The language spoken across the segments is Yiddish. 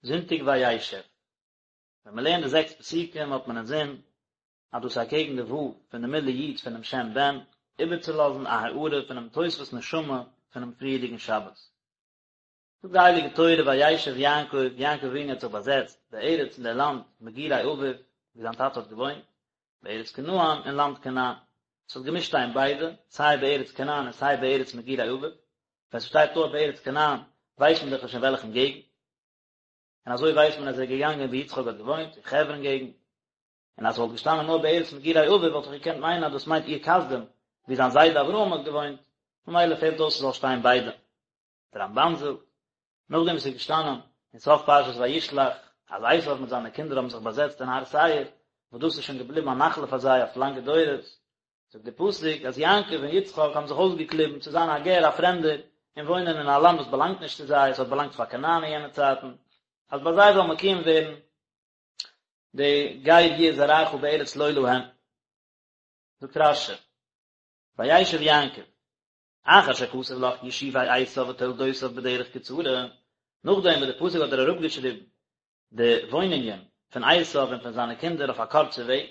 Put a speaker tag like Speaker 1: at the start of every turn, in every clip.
Speaker 1: זונטאג וישב. ווען מען לערנט די זעקס פסוקים האט מען אינזין אז דאס איז אקעגן די ו' פון די מילוי יו"ד פונעם שם ב"ן, איבערצולאזן א הארה פונעם תוספות נשמה פונעם פריערדיגן שבת. זאגט די הייליגע תורה וישב יעקב, יעקב אבינו האט זיך באזעצט בארץ אין דער לאנד מגורי אביו, וואו זיין טאטע האט געוואוינט, בארץ כנען אין לאנד כנען. עס האט געמוזט שטיין ביידע, סיי בארץ כנען און סיי בארץ מגורי אביו, ווען ס'שטייט נאר בארץ כנען ווייסט מען דאך נישט אין וועלכן געגנט, און אזוי ווייסט מען אז ער איז געגאנגען וואו יצחק האט געוואוינט, אין חברון געגנט, און אז ס'וואלט געשטאנען נאר בארץ מגורי אביו וואלט איך געקענט מיינען אז דאס מיינט אור כשדים, וואו זיין זיידע אברהם האט געוואוינט, ממילא פעלט אויס ס'זאל שטיין ביידע. דער רמב"ן זאגט, נאכדעם וואס ס'איז געשטאנען אין סוף פרשת וישלח אז עשיו מיט זיינע קינדער האבן זיך באזעצט אין הר שעיר, וואס דאס איז שוין געבליבן א נחלה פאר זיי אויף לאנגע דורות, זאגט דער פסוק אז יעקב און יצחק האבן זיך אויסגעקליבן צו זיין א גר א פרעמדער און וואוינען אין א לאנד וואס באלאנגט נישט צו זיי, עס האט באלאנגט פאר כנען אין יענע צייטן, אז ביי זיי זאל מקוים ווערן די גר יהיה זרעך בארץ לא להם. זאגט רש"י, וישב יעקב, אחר שכתב לך ישובי עשיו ותולדותיו בדרך קצרה, נאכדעם וואס דער פסוק האט דיר אראפגעשריבן די וואוינונגען פון עשיו און פון זיינע קינדער אויף א קורצע וועג,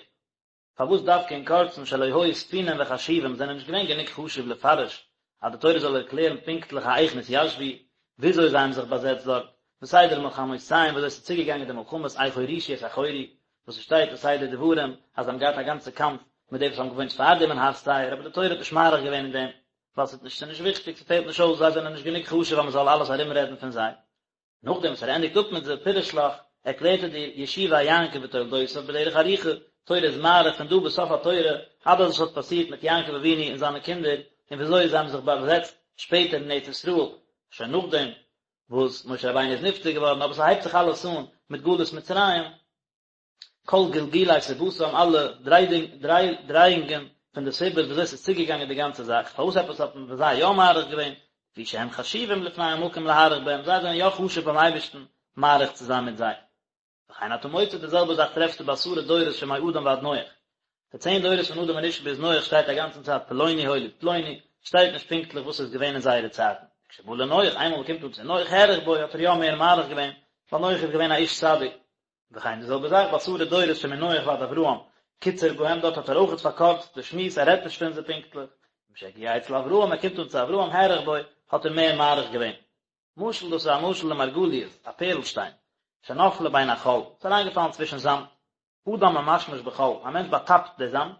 Speaker 1: פארוואס דווקא אין קורצן שלא היו ספונים וחשובים זענען נישט געווען גענוג חשוב לפרש אז די תורה זאל ערקלערן פונקטליך האיך נתיישבו, וויאזוי זיי האבן זיך באזעצט דארט, וסדר מלחמותיהם וויאזוי ס'איז צוגעגאנגען די מלחמות איך הורישו את החורי, וואס ס'שטייט אין סדר דברים אז זיי האבן געהאט א גאנצע קאמף מיט די וואס האבן געוואוינט פארדעם אין הר שעיר, אבער די תורה האט נישט מאריך געווען אין דעם, ווייל ס'איז נישט ס'נישט וויכטיג, ס'פעלט נישט אויס, זיי זענען נישט גענוג חשוב אז מ'זאל אלעס ארומרעדן פון זיי. נאכדעם וואס ער ענדיגט אפ מיט זיי פירש לך, ערקלערט ער דיר ישובי יעקב ותולדותיו בדרך ארוכה, תורה איז מאריך פון דא ביז סוף התורה, אלעס וואס האט פאסירט מיט יעקב אבינו און זיינע קינדער, און וויאזוי זיי האבן זיך באזעצט שפעטער אין ארץ ישראל, שוין נאכדעם וואס משה רבינו איז נפטר געווארן, אבער ס'הייבט זיך אלעס אן מיט גלות מצרים, כל גלגולי סיבתם, אלע דרייאונגען פון די סיבות וויאזוי ס'איז צוגעגאנגען די גאנצע זאך, פארוואס עפעס האט מען ביי זיי יא מאריך געווען, לפי שהם חשובים לפני המקום להאריך בהם, זיי זענען יא חשוב ביים אייבערשטן מאריך צו זיין מיט זיי. וכן אתה מוצא די זעלבע זאך טרעפסטו בעשרה דורות שמאדם ועד נח. די צען דורות פון אדם הראשון ביז נח שטייט א גאנצן צייט פלוני הוליד פלוני, שטייט נישט פונקטליך וואס איז געווען אין זייערע צייטן. כשבא לנח, איינמאל מ'קומט אן צו נח האריך בו האט ער יא מער מאריך געווען, ווייל נח איז געווען א איש צדיק. וכן די זעלבע זאך בעשרה דורות שמנח ועד אברהם, קיצר בהם דארט האט ער אויכעט פארקורצט די שמועס ער רעדט נישט פון זיי פונקטליך, משהגיע אצל אברהם ער קומט אן צו אברהם האריך בו האט ער מער מאריך געווען. משל דאס איז א משל למרגליות, א פערלשטיין, שנפלה בין החול, ס'איז אריינגעפאלן צווישן זאמד, אדם ממשמש בחול, א מענטש באטאפט די זאמד,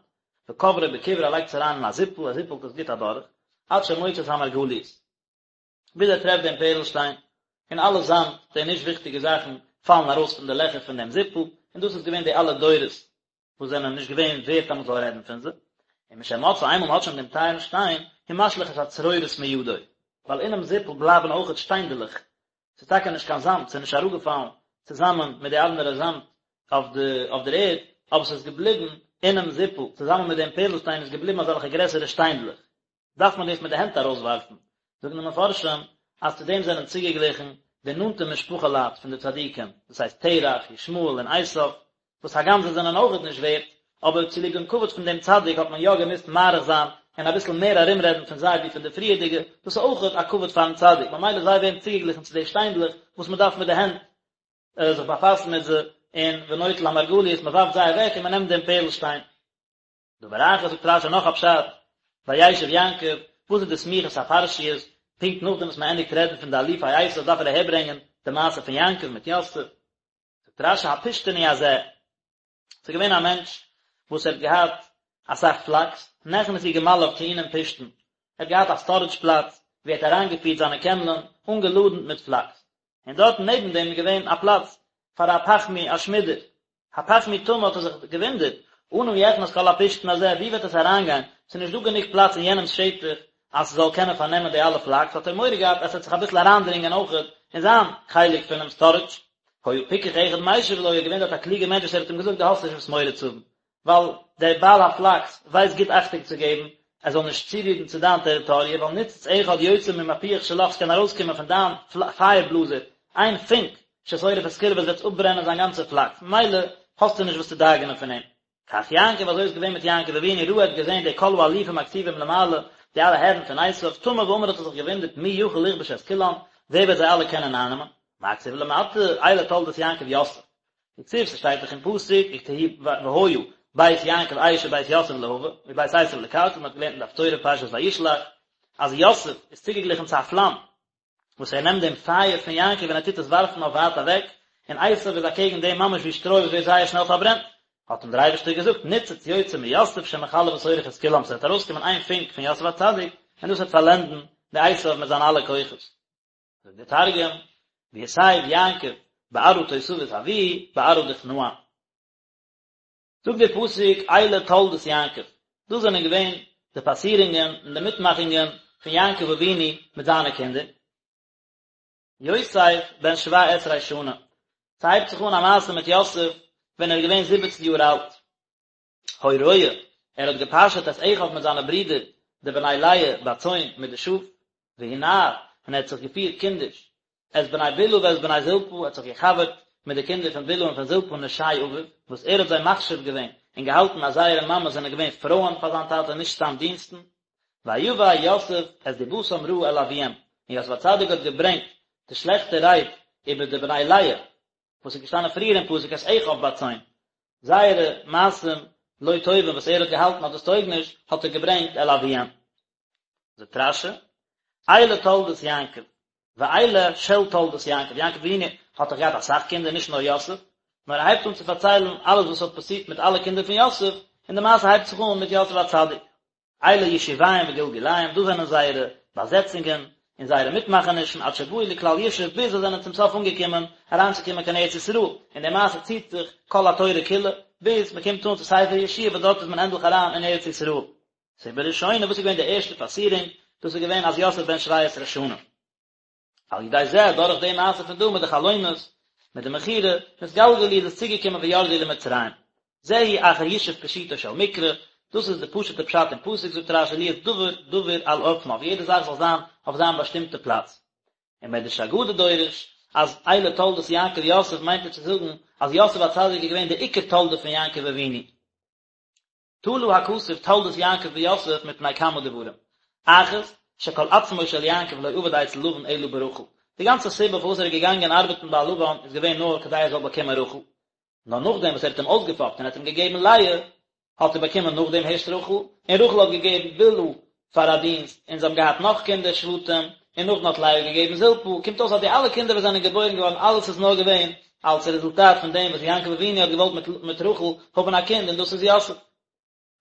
Speaker 1: וקוברו בכברה ער לייגט עס אריין אין א זיפל, ער זיפלט עס גוט אדורך, עד שמוצא את המרגליות. ביז ער טרעפט דעם פערלשטיין, און אלע זאמד, די נישט וויכטיגע זאכן, פאלן ארויס פון די לעכער פון דעם זיפל, און דאס איז געווען די אלע דורות וואס זענען נישט געווען ווערט אז מען זאל רעדן פון זיי. און משמצאו איינמאל מען האט שוין דעם טייערן שטיין, הוא משליך את הצרורות מידו, ווייל אינעם זיפל בלייבן אויכעט שטיינדעלעך, ס'איז טאקע נישט קיין זאמד, ס'איז נישט אראפגעפאלן צוזאמען מיט די אנדערע זאמד אויף די אויף דער ערד, אבער ס'איז געבליבן אינעם זיפל, צוזאמען מיט דעם פערלשטיין איז געבליבן אזעלכע גרעסערע שטיינדלעך. דארף מען דאס מיט די הענט ארויסווארפן, זאגן די מפרשים אז צו דעם זענען צוגעגליכן די נאנטע משפחה לייט פון די צדיקים, דאס הייסט תרח, ישמעאל און עשיו, וואס הגם זיי זענען אויכעט נישט ווערט, אבער צוליב דעם כבוד פון דעם צדיק האט מען יא געמוזט מאריך זיין און אביסל מער ארומרעדן פון זיי ווי פון די פריערדיגע, דאס איז אויכעט א כבוד פארן צדיק, ממילא זיי ווערן צוגעגליכן צו די שטיינדלעך וואס מען דארף מיט די הענט זיך באפאסן מיט זיי, און ונוטל המרגליות, מען ווארפט זיי אוועק און מען נעמט דעם פערלשטיין. דבר אחר זאגט רשי נאך א פשט, וישב יעקב, וואס איז די סמיכות הפרשיות, פונקט נאכדעם וואס מען ענדיגט רעדן פון די אלופי עשיו דארף ער אהערברענגען די מעשה פון יעקב מיט יוסף, זאגט רשי הפשתני הזה, ס'איז געווען א מענטש וואס ער האט געהאט אסאך פלאקס, נכנסו גמליו טעונים פשתן, ער האט געהאט א סטארעדזש פלאץ ווי ער האט אריינגעפירט זיינע קעמלען אנגעלאדנט מיט פלאקס, און דארטן נעבן דעם איז געווען א פלאץ פאר א פחמי, א שמידער. הפחמי תמה האט ער זיך געוואונדערט, אנה יכנס כל הפשתן הזה, ווי וועט עס אריינגיין, ס'איז נישט דא גענוג פלאץ אין יענעמ'ס שטח אז ס'זאל קענען פארנעמען די אלע פלאקס, האט ער מורא געהאט אז ס'וועט זיך אביסל אריינדרינגען אויכעט אין זיין חלק פונעם סטארעדזש. היה פיקח אחד משיב לו, איז געווען דארט א קלוגער מענטש וואס ער האט אים געזאגט דו האסט נישט וואס מורא צו האבן, ווייל דער בעל הפלאקס ווייסט גוט אכטונג צו געבן ער זאל נישט צורירן צו דיין טעריטאריע, ווייל ניצוץ אחד יוצא ממפוח שלך ס'קען ארויסקומען פון דיין פייער בלאזער איין פונק ששורף את כולו וואס וועט אפברענען זיין גאנצע פלאקס, ממילא האסטו נישט וואס צו דאגה'נען פון אים. כך יעקב, אזוי איז געווען מיט יעקב אבינו, ראה האט געזען די כל האלופים הכתובים למעלה, די אלע הערן פון עשיו, תמה ואמר האט ער זיך געוואונדערט מי יכול לכבוש את כולם, ווער וועט זיי אלע קענען אייננעמען? מה כתיב למטה, אלה תולדות יעקב יוסף. דכתיב ס'שטייט דאך אין פסוק, והיה בית יעקב אש ובית יוסף להבה, ובית עשו לקרקע, מ'האט געלערנט אין די הפטורה פרשת וישלח, אז יוסף איז צוגעגליכן צו א פלאם, וואס ער נעמט דעם פייער פון יעקב און ער טוט עס ווארפן אויף ווייט אוועק, און עשו איז אקעגן דעם ממש ווי שטרוי וואס ווערט זייער שנעל פארברענט. האט אים דער אייבערשטער געזאגט, ניצוץ יוצא מיוסף שמכלה ושורף את כולם, ס'וועט ארויסקומען איין פונק פון יוסף הצדיק, און דאס וועט פארלענדן די עשו מיט זיינע אלע כוחות. זאגט דער תרגום, ויתיב יעקב בארעא תותבית אבוהי, בארעא דכנען. זאגט דער פסוק אלה תולדות יעקב, דאס זענען געווען די פאסירונגען און די מיטמאכונגען פון יעקב אבינו מיט זיינע קינדער. יוסף בן שבע עשרה שנה, ס'הייבט זיך אן א מעשה מיט יוסף ווען ער איז געווען זיבעצן יאר אלט. היה רועה, ער האט געפאשעט את אחיו מיט זיינע ברידער די בני לאה בצאן מיט די שאף, והוא נער, און ער האט זיך געפירט קינדיש, את בני בלהה ואת בני זלפה, ער האט זיך געחברט מיט די קינדער פון בלהה און פון זלפה נשי אביו, וואס ער האט זיי מחשיב געווען און געהאלטן אז זייערע מאמעס זענען געווען פרויען פאר זיין טאטע נישט סתם דינסטן. ויבא יוסף את דבתם רעה אל אביהם, און יוסף הצדיק האט געברענגט די שלעכטע רייד איבער די בני לאה, וואס איז געשטאנען פריער אין פסוק את אחיו בצאן, זייערע מעשים לא טובים וואס ער האט געהאלטן אז דאס טויג נישט, האט ער געברענגט אל אביהם. זאגט רש"י, אלה תולדות יעקב, ואלה של תולדות יעקב, יעקב אבינו האט דאך געהאט אסאך קינדער נישט נאר יוסף, נאר ער הייבט אן צו פארציילן אלעס וואס האט פאסירט מיט אלע קינדער פון יוסף, און די מעשה הייבט זיך אן מיט יוסף הצדיק. אלה ישוביהם וגלגוליהם, דאס זענען זייערע באזעצונגען און זייערע מיטמאכענישן עד שבאו לכלל ישוב, ביז זיי זענען צום סוף אנגעקומען אריינצוקומען קיין ארץ ישראל, און די מעשה ציט זיך כל התורה כולה, ביז מען קומט אן צו ספר יהושע וואס דארט איז מען ענדליך אריין אין ארץ ישראל. סיבה ראשונה, וואס איז געווען די ערשטע פאסירונג, דאס איז געווען אז יוסף בן שבע עשרה שנה. על ידי זה, דורך די מעשה פון דא מיט די חלומות, מיט די מכירה, נתגלגלו איז עס צוגעקומען וירדו למצרים. זהו אחר ישוב פשוטו של מקרא, דאס איז די פשוט'ע פשט אין פסוק, זאגט רש"י להיות דבר דבור על אופניו, יעדע זאך זאל זיין אויף זיין באשטימטע פלאץ. און מדרש אגדה דורש, אז אלה תולדות יעקב יוסף מיינט ער צו זאגן אז יוסף הצדיק איז געווען די עיקר תולדה פון יעקב אבינו. תלה הכתוב תולדות יעקב ביוסף מפני כמה דברים. אחת, שכל עצמו של יעקב לא עבד אצל לבן אלא ברחל. די גאנצע סיבה פארוואס ער איז געגאנגען ארבעטן ביי לבן איז געווען נאר כדי ער זאל באקומען רחל. נאר נאכדעם וואס ער האט אים אויסגעפאפט און ער האט אים געגעבן לאה, האט ער באקומען נאכדעם הערשט רחל, און רחל האט געגעבן בלהה פאר א דינסט, און זיי האבן געהאט נאך קינדער שבטים, און נאכדעם האט לאה געגעבן זלפה, קומט אויס אז די אלע קינדער וואס זענען געבוירן געווארן אלעס איז נאר געווען אלס רעזולטאט פון דעם וואס יעקב אבינו האט געוואלט מיט רחל האבן א קינד און דאס איז יוסף.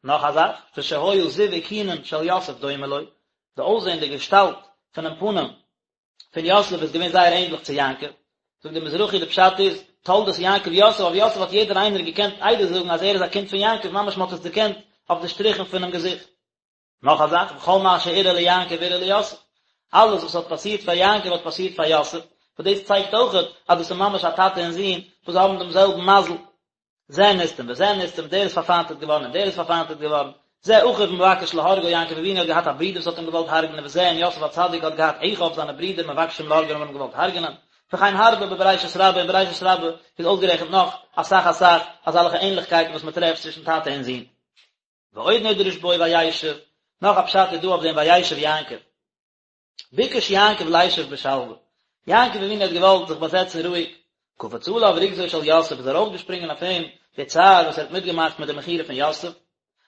Speaker 1: נאך א זאך, ושהיה זיו אוכונין של יוסף דומה לו, די אויסזען די געשטאלט פונעם פנים פון יוסף איז געווען זייער ענדליך צו יעקב, זאגט דער מזרחי די פשט איז, תולדות יעקב יוסף, אויף יוסף האט יעדער איינער געקענט עדות זאגן אז ער איז א קינד פון יעקב, ממש מען האט עס דערקענט אויף די שטריכן פונעם געזיכט. נאך א זאך, וכל מה שאירע ליעקב אירע ליוסף, אלעס וואס האט פאסירט פאר יעקב האט פאסירט פאר יוסף, וואס דאס צייגט אויכעט אז דאס איז ממש א טאטע און זון וואס האבן דעם זעלבן מזל. זה נסתם וזה נסתם, דער איז פארפיינטעט געווארן און דער איז פארפיינטעט געווארן, זה אחיו מבקש להורגו, יעקב אבינו האט געהאט א ברודער וואס האט אים געוואלט הרג'נען וזה און יוסף הצדיק האט געהאט אחיו זיינע ברידער מבקשים להורגו האבן אים געוואלט הרג'נען, וכן הרבה בבראשית רבה, אין בראשית רבה איז אויסגערעכנט נאך אסאך אסאך אזעלכע ענליכקייטן וואס מען טרעפט צווישן טאטע און זון. ועוד נדרש בו וישב, נאך א פשט איז דא אויף דעם וישב יעקב. ביקש יעקב לישב בשלווה, יעקב אבינו האט געוואלט זיך באזעצן רואיג, קפץ עליו רוגזו של יוסף איז ארויפגעשפרינגען אויף אים די צער וואס ער האט מיטגעמאכט מיט די מכירה פון יוסף,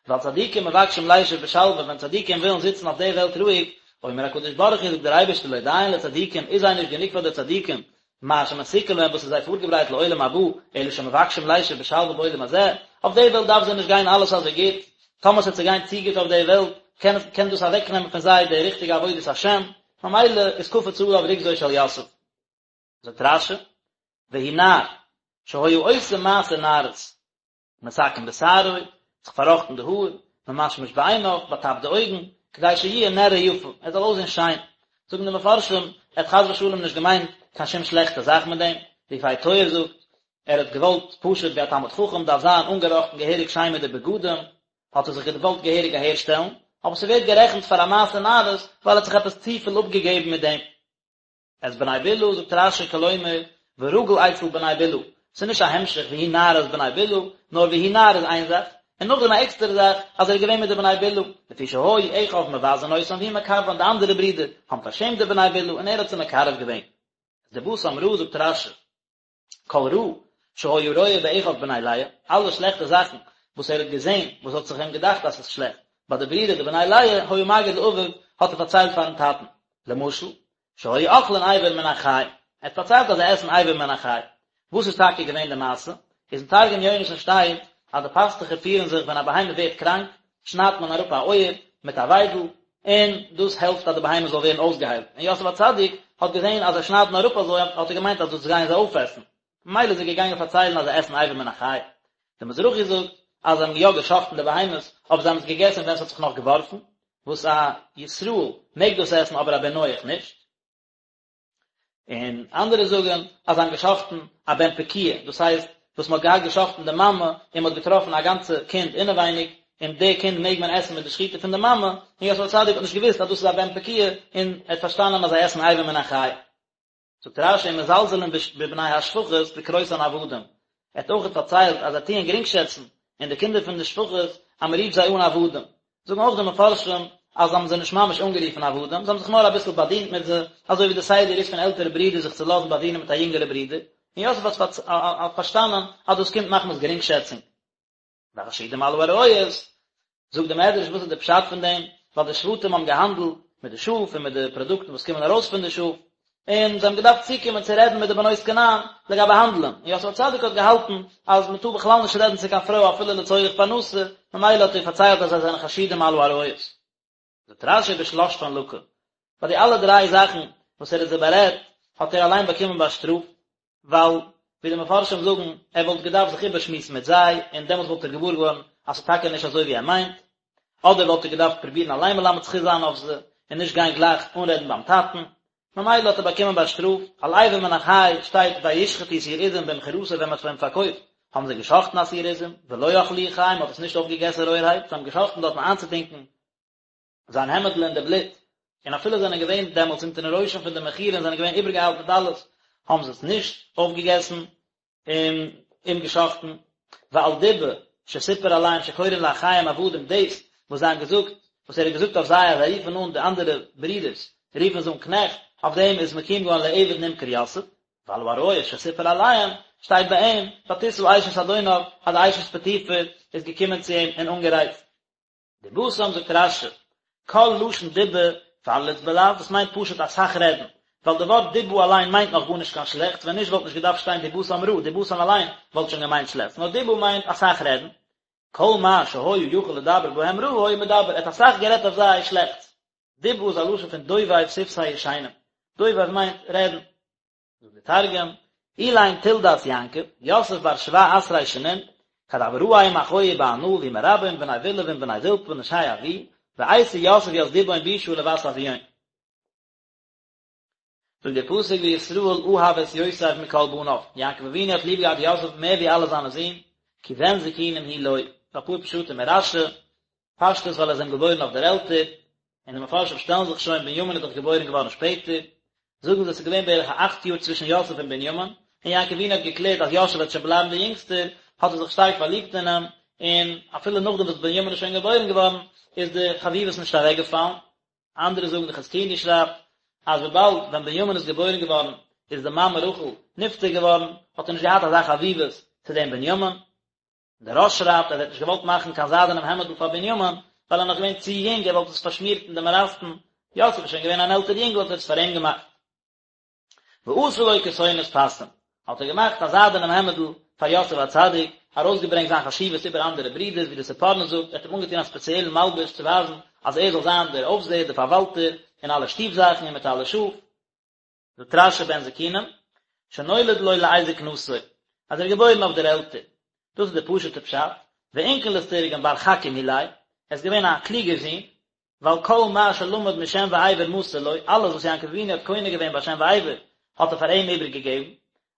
Speaker 1: ווייל צדיקים מבקשים לישב בשלווה, ווען צדיקים ווילן זיצן אויף די וועלט רואיג, אומר הקדוש ברוך הוא זאגט דער אייבערשטער לא דיין לצדיקים, איז זיי נישט גענוג פאר די צדיקים, מה שמתוקן להם וואס איז זיי פארגעברייט לעולם הבא, אלא שמבקשים לישב בשלווה בעולם הזה, אויף די וועלט דארף זיי נישט גיין אלעס אזוי גוט, טאמער ס'וועט זיי גיין צו גוט אויף די וועלט, קען קען דאס אוועקנעמען פון זיי די ריכטיגע עבודת השם, ממילא איז קפץ עליו רוגזו של יוסף. זאגט רש"י, והוא נער, שהיה עושה מעשה נערות. מתקן בשערו, זיך פארראכטן די האר, ממשמש בעיניו, באטאפט די אויגן, כדי שיהיה נראה יפה, ער זאל אויסזען שיין. זאגן די מפרשים, ער האט חס ושלום נישט געמיינט קיין שום שלעכטע זאך מיט דעם, די יפה תואר זאגט, ער האט געוואלט פשוט ווי א תלמיד חכם דארף זיין אנגעראכטן געהעריג שיין מיט די בגדים, האט ער זיך געוואלט געהעריג אהערשטעלן, אבער ס'ווערט גערעכנט פאר א מעשה נערות ווייל ער האט זיך עפעס צופיל אפגעגעבן מיט דעם. את בני בלהה, זאגט רש"י כלומר, ורגיל אצל בני בלהה, ס'איז נישט א המשך והוא נער את בני בלהה, נאר והוא נער איז איין זאך, און נאכדעם א עקסטערע זאך אז ער איז געווען מיט די בני בלהה, לפי שהיו אחיו מבזין אותם והוא מקרבן, די אנדערע ברידער האבן פארשעמט די בני בלהה און ער האט זיי מקרב געווען. דבתם רעה זאגט רש"י, כל רע שהיה רואה באחיו בני לאה, אלע שלעכטע זאכן וואס ער האט געזען, וואס האט זיך אים געדאכט אז ס'איז שלעכט, ביי די ברידער די בני לאה, היה מגיד לאביו, האט ער פארציילט פארן טאטן. למשל, שהיו אוכלין אבר מן החי, ער האט פארציילט אז זיי עסן אבר מן החי. וואס איז טאקע געווען די מעשה? איז אין תרגום יונתן שטייט אז די פאסטוכער פירן זיך ווען א בהמה ווערט קראנק, שניידט מען אראפ א אויער מיט א וויידל, און דאס העלפט אז די בהמה זאל ווערן אויסגעהיילט, און יוסף הצדיק האט געזען אז זיי שניידן אראפ אזוי, האט ער געמיינט אז דאס גייען זיי אויפעסן, ממילא איז ער געגאנגען פארציילן אז זיי עסן אבר מן החי. דער מזרחי זאגט אז זיי האבן יא גע'שחט'ן די בהמות, אבער זיי האבן עס געגעסן ווען עס האט זיך נאך געווארפן, וואס א ישראל מעג דאס עסן אבער א בן נח נישט. און אנדערע זאגן אז זיי האבן געשחט'ן א בן פקועה, דאס הייסט וואס מען האט געהאט געשחט'ן די מאמע און מען האט געטראפן א גאנצע קינד אינעווייניג, און די קינד מעג מען עסן מיט די שחיטה פון די מאמע, און יוסף הצדיק האט נישט געוואוסט אז דאס איז א בן פקועה, און ער האט פארשטאנען אז זיי עסן אבר מן החי. זאגט רש"י ומזלזלין בבני השפחות בקרותן עבדים, ער האט אויכעט פארציילט אז זיי טוען גרינגשעצן אין די קינדער פון די שפחות אז מען רופט זיי אן עבדים, זאגן אויך די מפרשים אז זיי האבן זיי נישט ממש אנגערופן עבדים, זיי האבן זיך נאר אביסל באדינט מיט זיי, אזוי ווי די סדר איז פון עלטערע ברידער זיך צו לאזן באדינען מיט א יונגערע ברודער, און יוסף האט פארשטאנען אז דאס קומט מחמת גרינגשעצונג. והחשודים על העריות, זאגט די מדרש וואס איז די פשט פון דעם, ווייל די שבטים האבן געהאנדלט מיט די שאף און מיט די פראדוקטן וואס קומען ארויס פון די שאף, און זיי האבן געדארפט צוקומען צו רעדן מיט די בנות כנען לגבי האנדלען, און יוסף הצדיק האט געהאלטן אז מען טאר בכלל נישט רעדן צו קיין פרוי אפילו לצורך פרנסה, ממילא האט ער פארציילט אז זיי זענען חשודים על העריות. זאגט רש"י בשלשתן לקה, ביי די אלע דריי זאכן וואס ער האט זיי בארעדט האט ער אליין באקומען באשטראפט, ווייל ווי די מפרשים זאגן ער וואלט געדארפט זיך איבערשמועסן מיט זיי און דעמאלטס וואלט ער געוואר געווארן אז ס'איז טאקע נישט אזוי ווי ער מיינט, אדער וואלט ער געדארפט פרובירן אליין מלמד זכות זיין אויף זיי און נישט גיין גלייך אנרעדן ביים טאטן, ממילא האט ער באקומען באשטראפט, על אבר מן החי שטייט וישחטו שעיר עזים במכירתו ווען מ'האט אים פארקויפט האבן זיי געשחטן א שעיר עזים, ולא אכלוהו חי מ'האט עס נישט אויפגעגעסן רויערהייט, זיי האבן געשחטן דארטן איינצוטונקען זיין העמעדל אין די בלוט, און אפילו זענען געווען דעמאלטס אונטערן רושם פון די מכירה און זענען געווען איבערגעאיילט מיט אלעס, האבן זיי עס נישט אויפגעגעסן און אים געשחטן. ועל דיבה שסיפר עליהם שקורין לאחיהם עבדים דאס וואס זיי האבן געזאגט, וואס ער האט געזאגט אויף זיי אז זיי רופן אן די אנדערע ברידערס רופן זיי אן קנעכט, אויף דעם איז מקוים געווארן לעבד נמכר יוסף, ועל העריות שסיפר עליהם, שטייט ביי אים, ותשא אשת אדוניו, אז די אשת פוטיפר איז געקומען צו אים און אנגערייצט. דבתם זאגט רש"י, כל לשון דיבה פרליץ בלע"ז, דאס מיינט פשוט אסאך רעדן, ווייל די ווארט דיבה אליין מיינט נאך גארנישט קיין שלעכטס, ווען נישט וואלט נישט געדארפט שטיין דבתם רעה, דבתם אליין וואלט שוין געמיינט שלעכטס, נאר דיבה מיינט אסאך רעדן. כל מה שהיה יכול לדבר בהם רעה היה מדבר, ער האט אסאך גערעדט אויף זיי שלעכטס. דיבה איז א לשון פון דובב שפתי ישנים, דובב מיינט רעדן. זאגט די תרגום, אלין תולדת יעקב, יוסף בר שבע עשרי שנין, כד הוה רעי עם אחוהי בענא ועם רבהון בני בלהה ועם בני זלפה נשי אבוהי, ואייתי יוסף ית דיבהון בישא לבת אבוהון. זאגט דער פסוק וישראל אהב את יוסף מכל בניו, יעקב אבינו האט ליב געהאט יוסף מער ווי אלע זיינע זין, כי בן זקונים הוא לו, אפאר פשטים אין רש"י, פשטות ווייל ער איז אים געבוירן אויף דער עלטער, און די מפרשים שטעלן זיך שוין בנימין איז דאך געבוירן געווארן שפעטער, זאגן זיי ס'איז געווען בערך א אכט יאר צווישן יוסף און בנימין, און יעקב אבינו האט געקלערט אז יוסף וועט שוין בלייבן דער יונגסטער, האט ער זיך שטארק פארליבט אין אים, און אפילו נאכדעם וואס בנימין איז שוין געבוירן געווארן, איז די חביבות נישט אוועקגעפאלן. אנדערע זאגן די חזקוני שרייבט, אז וויבאלד ווען בנימין איז געבוירן געווארן איז די מאמע רחל נפטר געווארן, האט ער נישט געהאט אזא חביבות צו דעם בנימין. דער רא"ש שרייבט אז ער האט נישט געוואלט מאכן קיין זיידענעם העמעדל פאר בנימין, ווייל ער איז נאך געווען צו יונג, ער וואלט עס פארשמירט אין די מאראסטן, יוסף איז שוין געווען אן עלטער יונגל האט ער עס פאר אים געמאכט. ועשה לו כתונת פסים, האט ער געמאכט א זיידענעם העמעדל פאר יוסף הצדיק, ארויסגעברענגט זיין חשיבות איבער אנדערע ברידערס, ווי דער ספורנו זאגט, ער האט אים אנגעטון א ספעציעלן מלבוש צו ווייזן אז ער זאל זיין דער אויפזעער, דער פארוואלטער, אין אלע שטוב זאכן און מיט אלע שאף. זאגט רש"י בן זקונים, שנולד לו לעת זקנתו, אז ער איז געבוירן אויף דער עלטער, דאס איז דער פשוט'ער פשט, ואונקלוס תרגם בר חכים הוא ליה, ער איז געווען א קלוגער זון, ווייל כל מה שלמד משם ועבר מסר לו, אלעס וואס יעקב אבינו האט קונה געווען ביי שם ועבר, האט ער פאר אים איבערגעגעבן,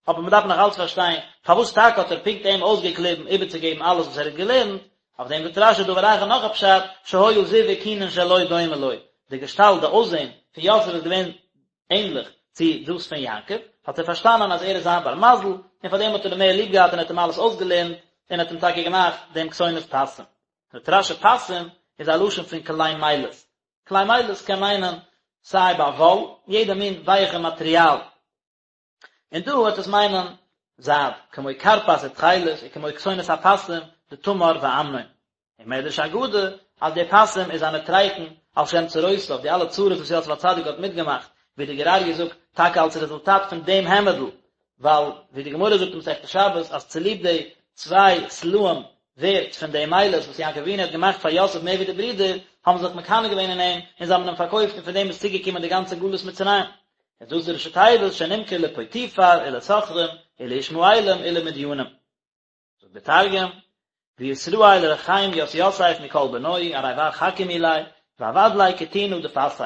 Speaker 1: אבער מען דארף נאך אלץ פארשטיין, פארוואס טאקע האט ער פונקט אים אויסגעקליבן איבערצוגעבן אלעס וואס ער האט געלערנט, אויף דעם זאגט רש"י דבר אחר נאך א פשט, שהיה זיו אוכינין שלו דומה לו, די געשטאלט, די אויסזען, פון יוסף איז געווען ענליך צו דאס פון יעקב, האט ער פארשטאנען אז ער איז זיין בר מזל, און פאר דעם האט ער אים מער ליב געהאט און האט אים אלעס אויסגעלערנט, און האט אים טאקע געמאכט דעם כתונת פסים. זאגט רש"י פסים איז א לשון פון כלי מילת. כלי מילת קען מיינען סיי ביי וואל, יעדע מין ווייעכע מאטריאל. און דא וועט עס מיינען זייד, כמו כרפס ותכלת וכמו כתונת הפסים דתמר ואמנון. און מדרש אגדה אז די פסים איז א נוטריקון על שם צרותיו, די אלע צרות וואס יוסף הצדיק האט מיטגעמאכט, ווי די גור אריה זאגט, טאקע אלס רעזולטאט פון דעם העמעדל, ווייל ווי די גמרא זאגט אין מסכת שבת אז צוליב די צוויי סלעים ווערט פון די מילת וואס יעקב אבינו האט געמאכט פאר יוסף מער ווי די ברידער, האבן זיך מקנא געווען אין אים און זיי האבן אים פארקויפט און פון דעם איז צוגעקומען די גאנצע גלות מצרים. איז דאס די ראשי תיבות שנמכר לפוטיפר ולסוחרים ולישמעאלים ולמדינים. זאגט דער תרגום, וישראל רחים ית יוסף מכל בנוהי ארי בר חכים ליה ועבד ליה כתינא דפסי.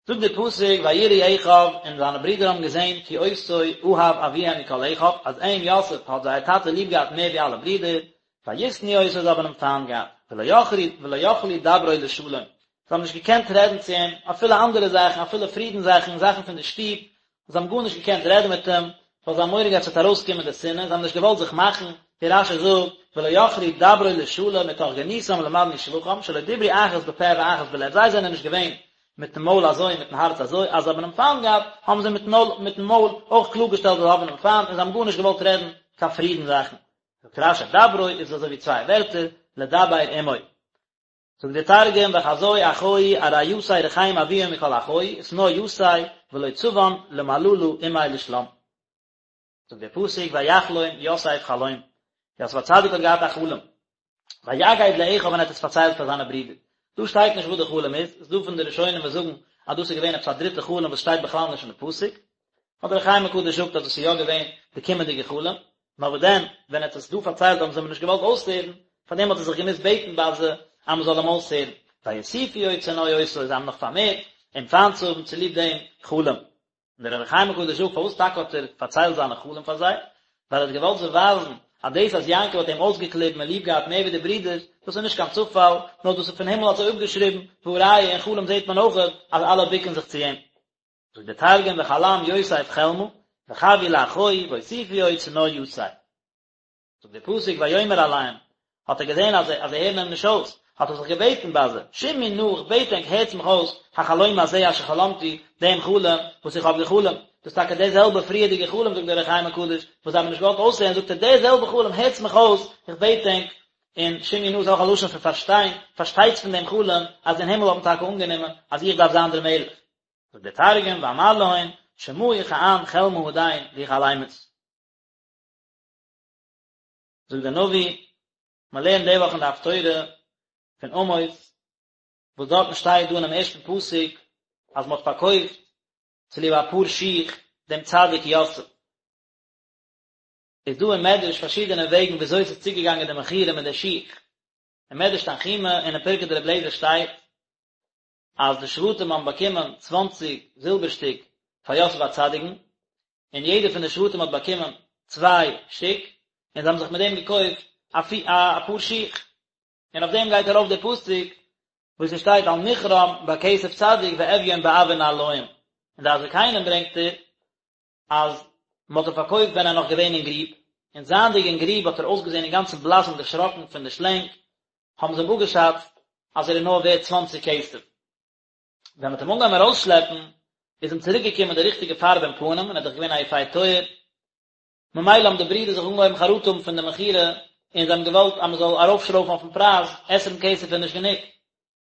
Speaker 1: זאגט דער פסוק ויראו אחיו און זיינע ברידער האבן געזען כי אותו אהב אביהם מכל אחיו אז אים יוסף האט זייער טאטע ליב געהאט מער ווי אלע ברידער, וישנאו אותו זיי האבן אים פיינט געהאט, ולא יכלו ולא יכלו דברו לשלום זיי האבן נישט געקענט רעדן צו אים אפילו אנדערע זאכן אפילו פרידן זאכן זאכן פון די שטוב, זיי האבן גארנישט געקענט רעדן מיט אים, ווייל זיי האבן מורא געהאט ס'וועט ארויסקומען די שנאה, זיי האבן נישט געוואלט זיך מאכן, ווי רש"י זאגט, ולא יכלו דברו לשלום מתוך גנותם למדנו שבחם, שלא דיברו אחת בפה ואחת בלב, זיי זענען נישט געווען מיטן מויל אזוי און מיטן הארץ אזוי, אז זיי האבן אים פיינט געהאט, האבן זיי מיטן מויל אויך קלארגעשטעלט אז זיי האבן אים פיינט, און זיי האבן גארנישט געוואלט רעדן קיין פרידן זאכן. זאגט רש"י דברו איז אזוי ווי צוויי ווערטער, לדבר עמו. זאגט דער תרגום וחזו אחוהי ארי יתיה רחים אבוהון מכל אחוהי ושנא יתיה ולא צבן למללא עמיה לשלם. זאגט דער פסוק ויחלום יוסף חלום, יוסף הצדיק האט געהאט א חלום, ויגד לאחיו און ער האט עס פארציילט פאר זיינע ברידער, דא שטייט נישט וואס די חלום איז, ס'איז דא פון די ראשונים וואס זאגן אז דאס איז געווען עפעס א דריטע חלום וואס שטייט בכלל נישט אין די פסוק, אבער אור החיים הקדוש זאגט אז דאס איז יא געווען די קומענדיגע חלום, נאר וואס דען, ווען ער האט עס דא פארציילט האבן זיי אים נישט געוואלט אויסהערן, פארדעם האט ער זיך געמוזט בעטן ביי זיי אז מען זאל אים אויסהערן, ויוסיפו עוד שנוא אותו, זיי האבן נאך פארמערט אים פיינט צו האבן צוליב דעם חלום. און דער אור החיים הקדוש זאגט, פארוואס טאקע האט ער פארציילט זיינע חלום פאר זיי? ווייל ער האט געוואלט זיי ווייזן אז דאס אז יעקב האט אים אויסגעקליבן און ליב געהאט מער ווי די ברידערס, דאס איז נישט קיין צופאל, נאר דאס איז פון הימל אזוי אפגעשריבן, והא ראיה אין חלום זעט מען אויך אז אלע בוקן זיך צו אים. זאגט דער תרגום וחלם יוסף חלמא וחוי לאחוהי ואוסיפו עוד שנוא יתיה. זאגט דער פסוק ויאמר אליהם, האט ער געזען אז זיי הערן אים נישט אויס, האט ער זיך געבעטן ביי זיי, שמעו נא, איך בעט ענק, הערטס מיך אויס, החלום הזה אשר חלמתי, דעם חלום וואס איך האב געחלומט, דאס איז טאקע דער זעלבער פריערדיגער חלום, זאגט דער אור החיים הקדוש, וואס זיי האבן נישט געוואלט אויסהערן, זאגט ער, דער זעלבער חלום, הערטס מיך אויס, איך בעט ענק, און שמעו נא איז אויך א לשון פון פארשטיין, פארשטייטס פון דעם חלום, אז אין הימל האט מען טאקע אנגענומען אז איך דארף זיין דער מלך. זאגט דער תרגום ואמר להון שמעו כען חלמא הדין די חלמית. זאגט דער נביא, מען לערנט די וואך אין די הפטורה פון עמוס, וואס דארטן שטייט דא אינעם ערשטן פסוק אז מען האט פארקויפט צוליב א פאר שיך דעם צדיק יוסף. איז דא אין מדרש פארשידענע וועגן ווי אזוי עס איז צוגעגאנגען די מכירה מיט די שיך. אין מדרש תנחומא און אין פרקי דרבי אליעזר שטייט אז די שבטים האבן באקומען צוואנציג זילבער שטיק פאר יוסף הצדיק'ן, און יעדער פון די שבטים האט באקומען צוויי שטיק, און זיי האבן זיך מיט דעם געקויפט א פאר שיך. און אויף דעם גייט ארויף דער פסוק וואס עס שטייט אל מכרם בכסף צדיק ואביון בעבור נעלים, און דעת זקנים ברענגט ער אז מען האט אים פארקויפט ווען ער איז נאך געווען אין גריב, און זייענדיג אין גריב האט ער אויסגעזען אינגאנצן בלאס און דערשראקן פון די שלענג, האבן זיי אים אפגעשאצט אז ער איז נאר ווערט צוואנציג כסף. ווען מען האט אים אנגעהויבן ארויסשלעפן, איז אים צוריק געקומען די ריכטיגע פארב אין פנים, און ער איז דאך געווען א יפה תואר, ממילא האבן די ברידער זיך אנגעהויבן חרטה האבן פון די מכירה, און זיי האבן געוואלט אז מען זאל ארויפשרויפן אויפן פרייז, עשרים כסף איז נישט גענוג.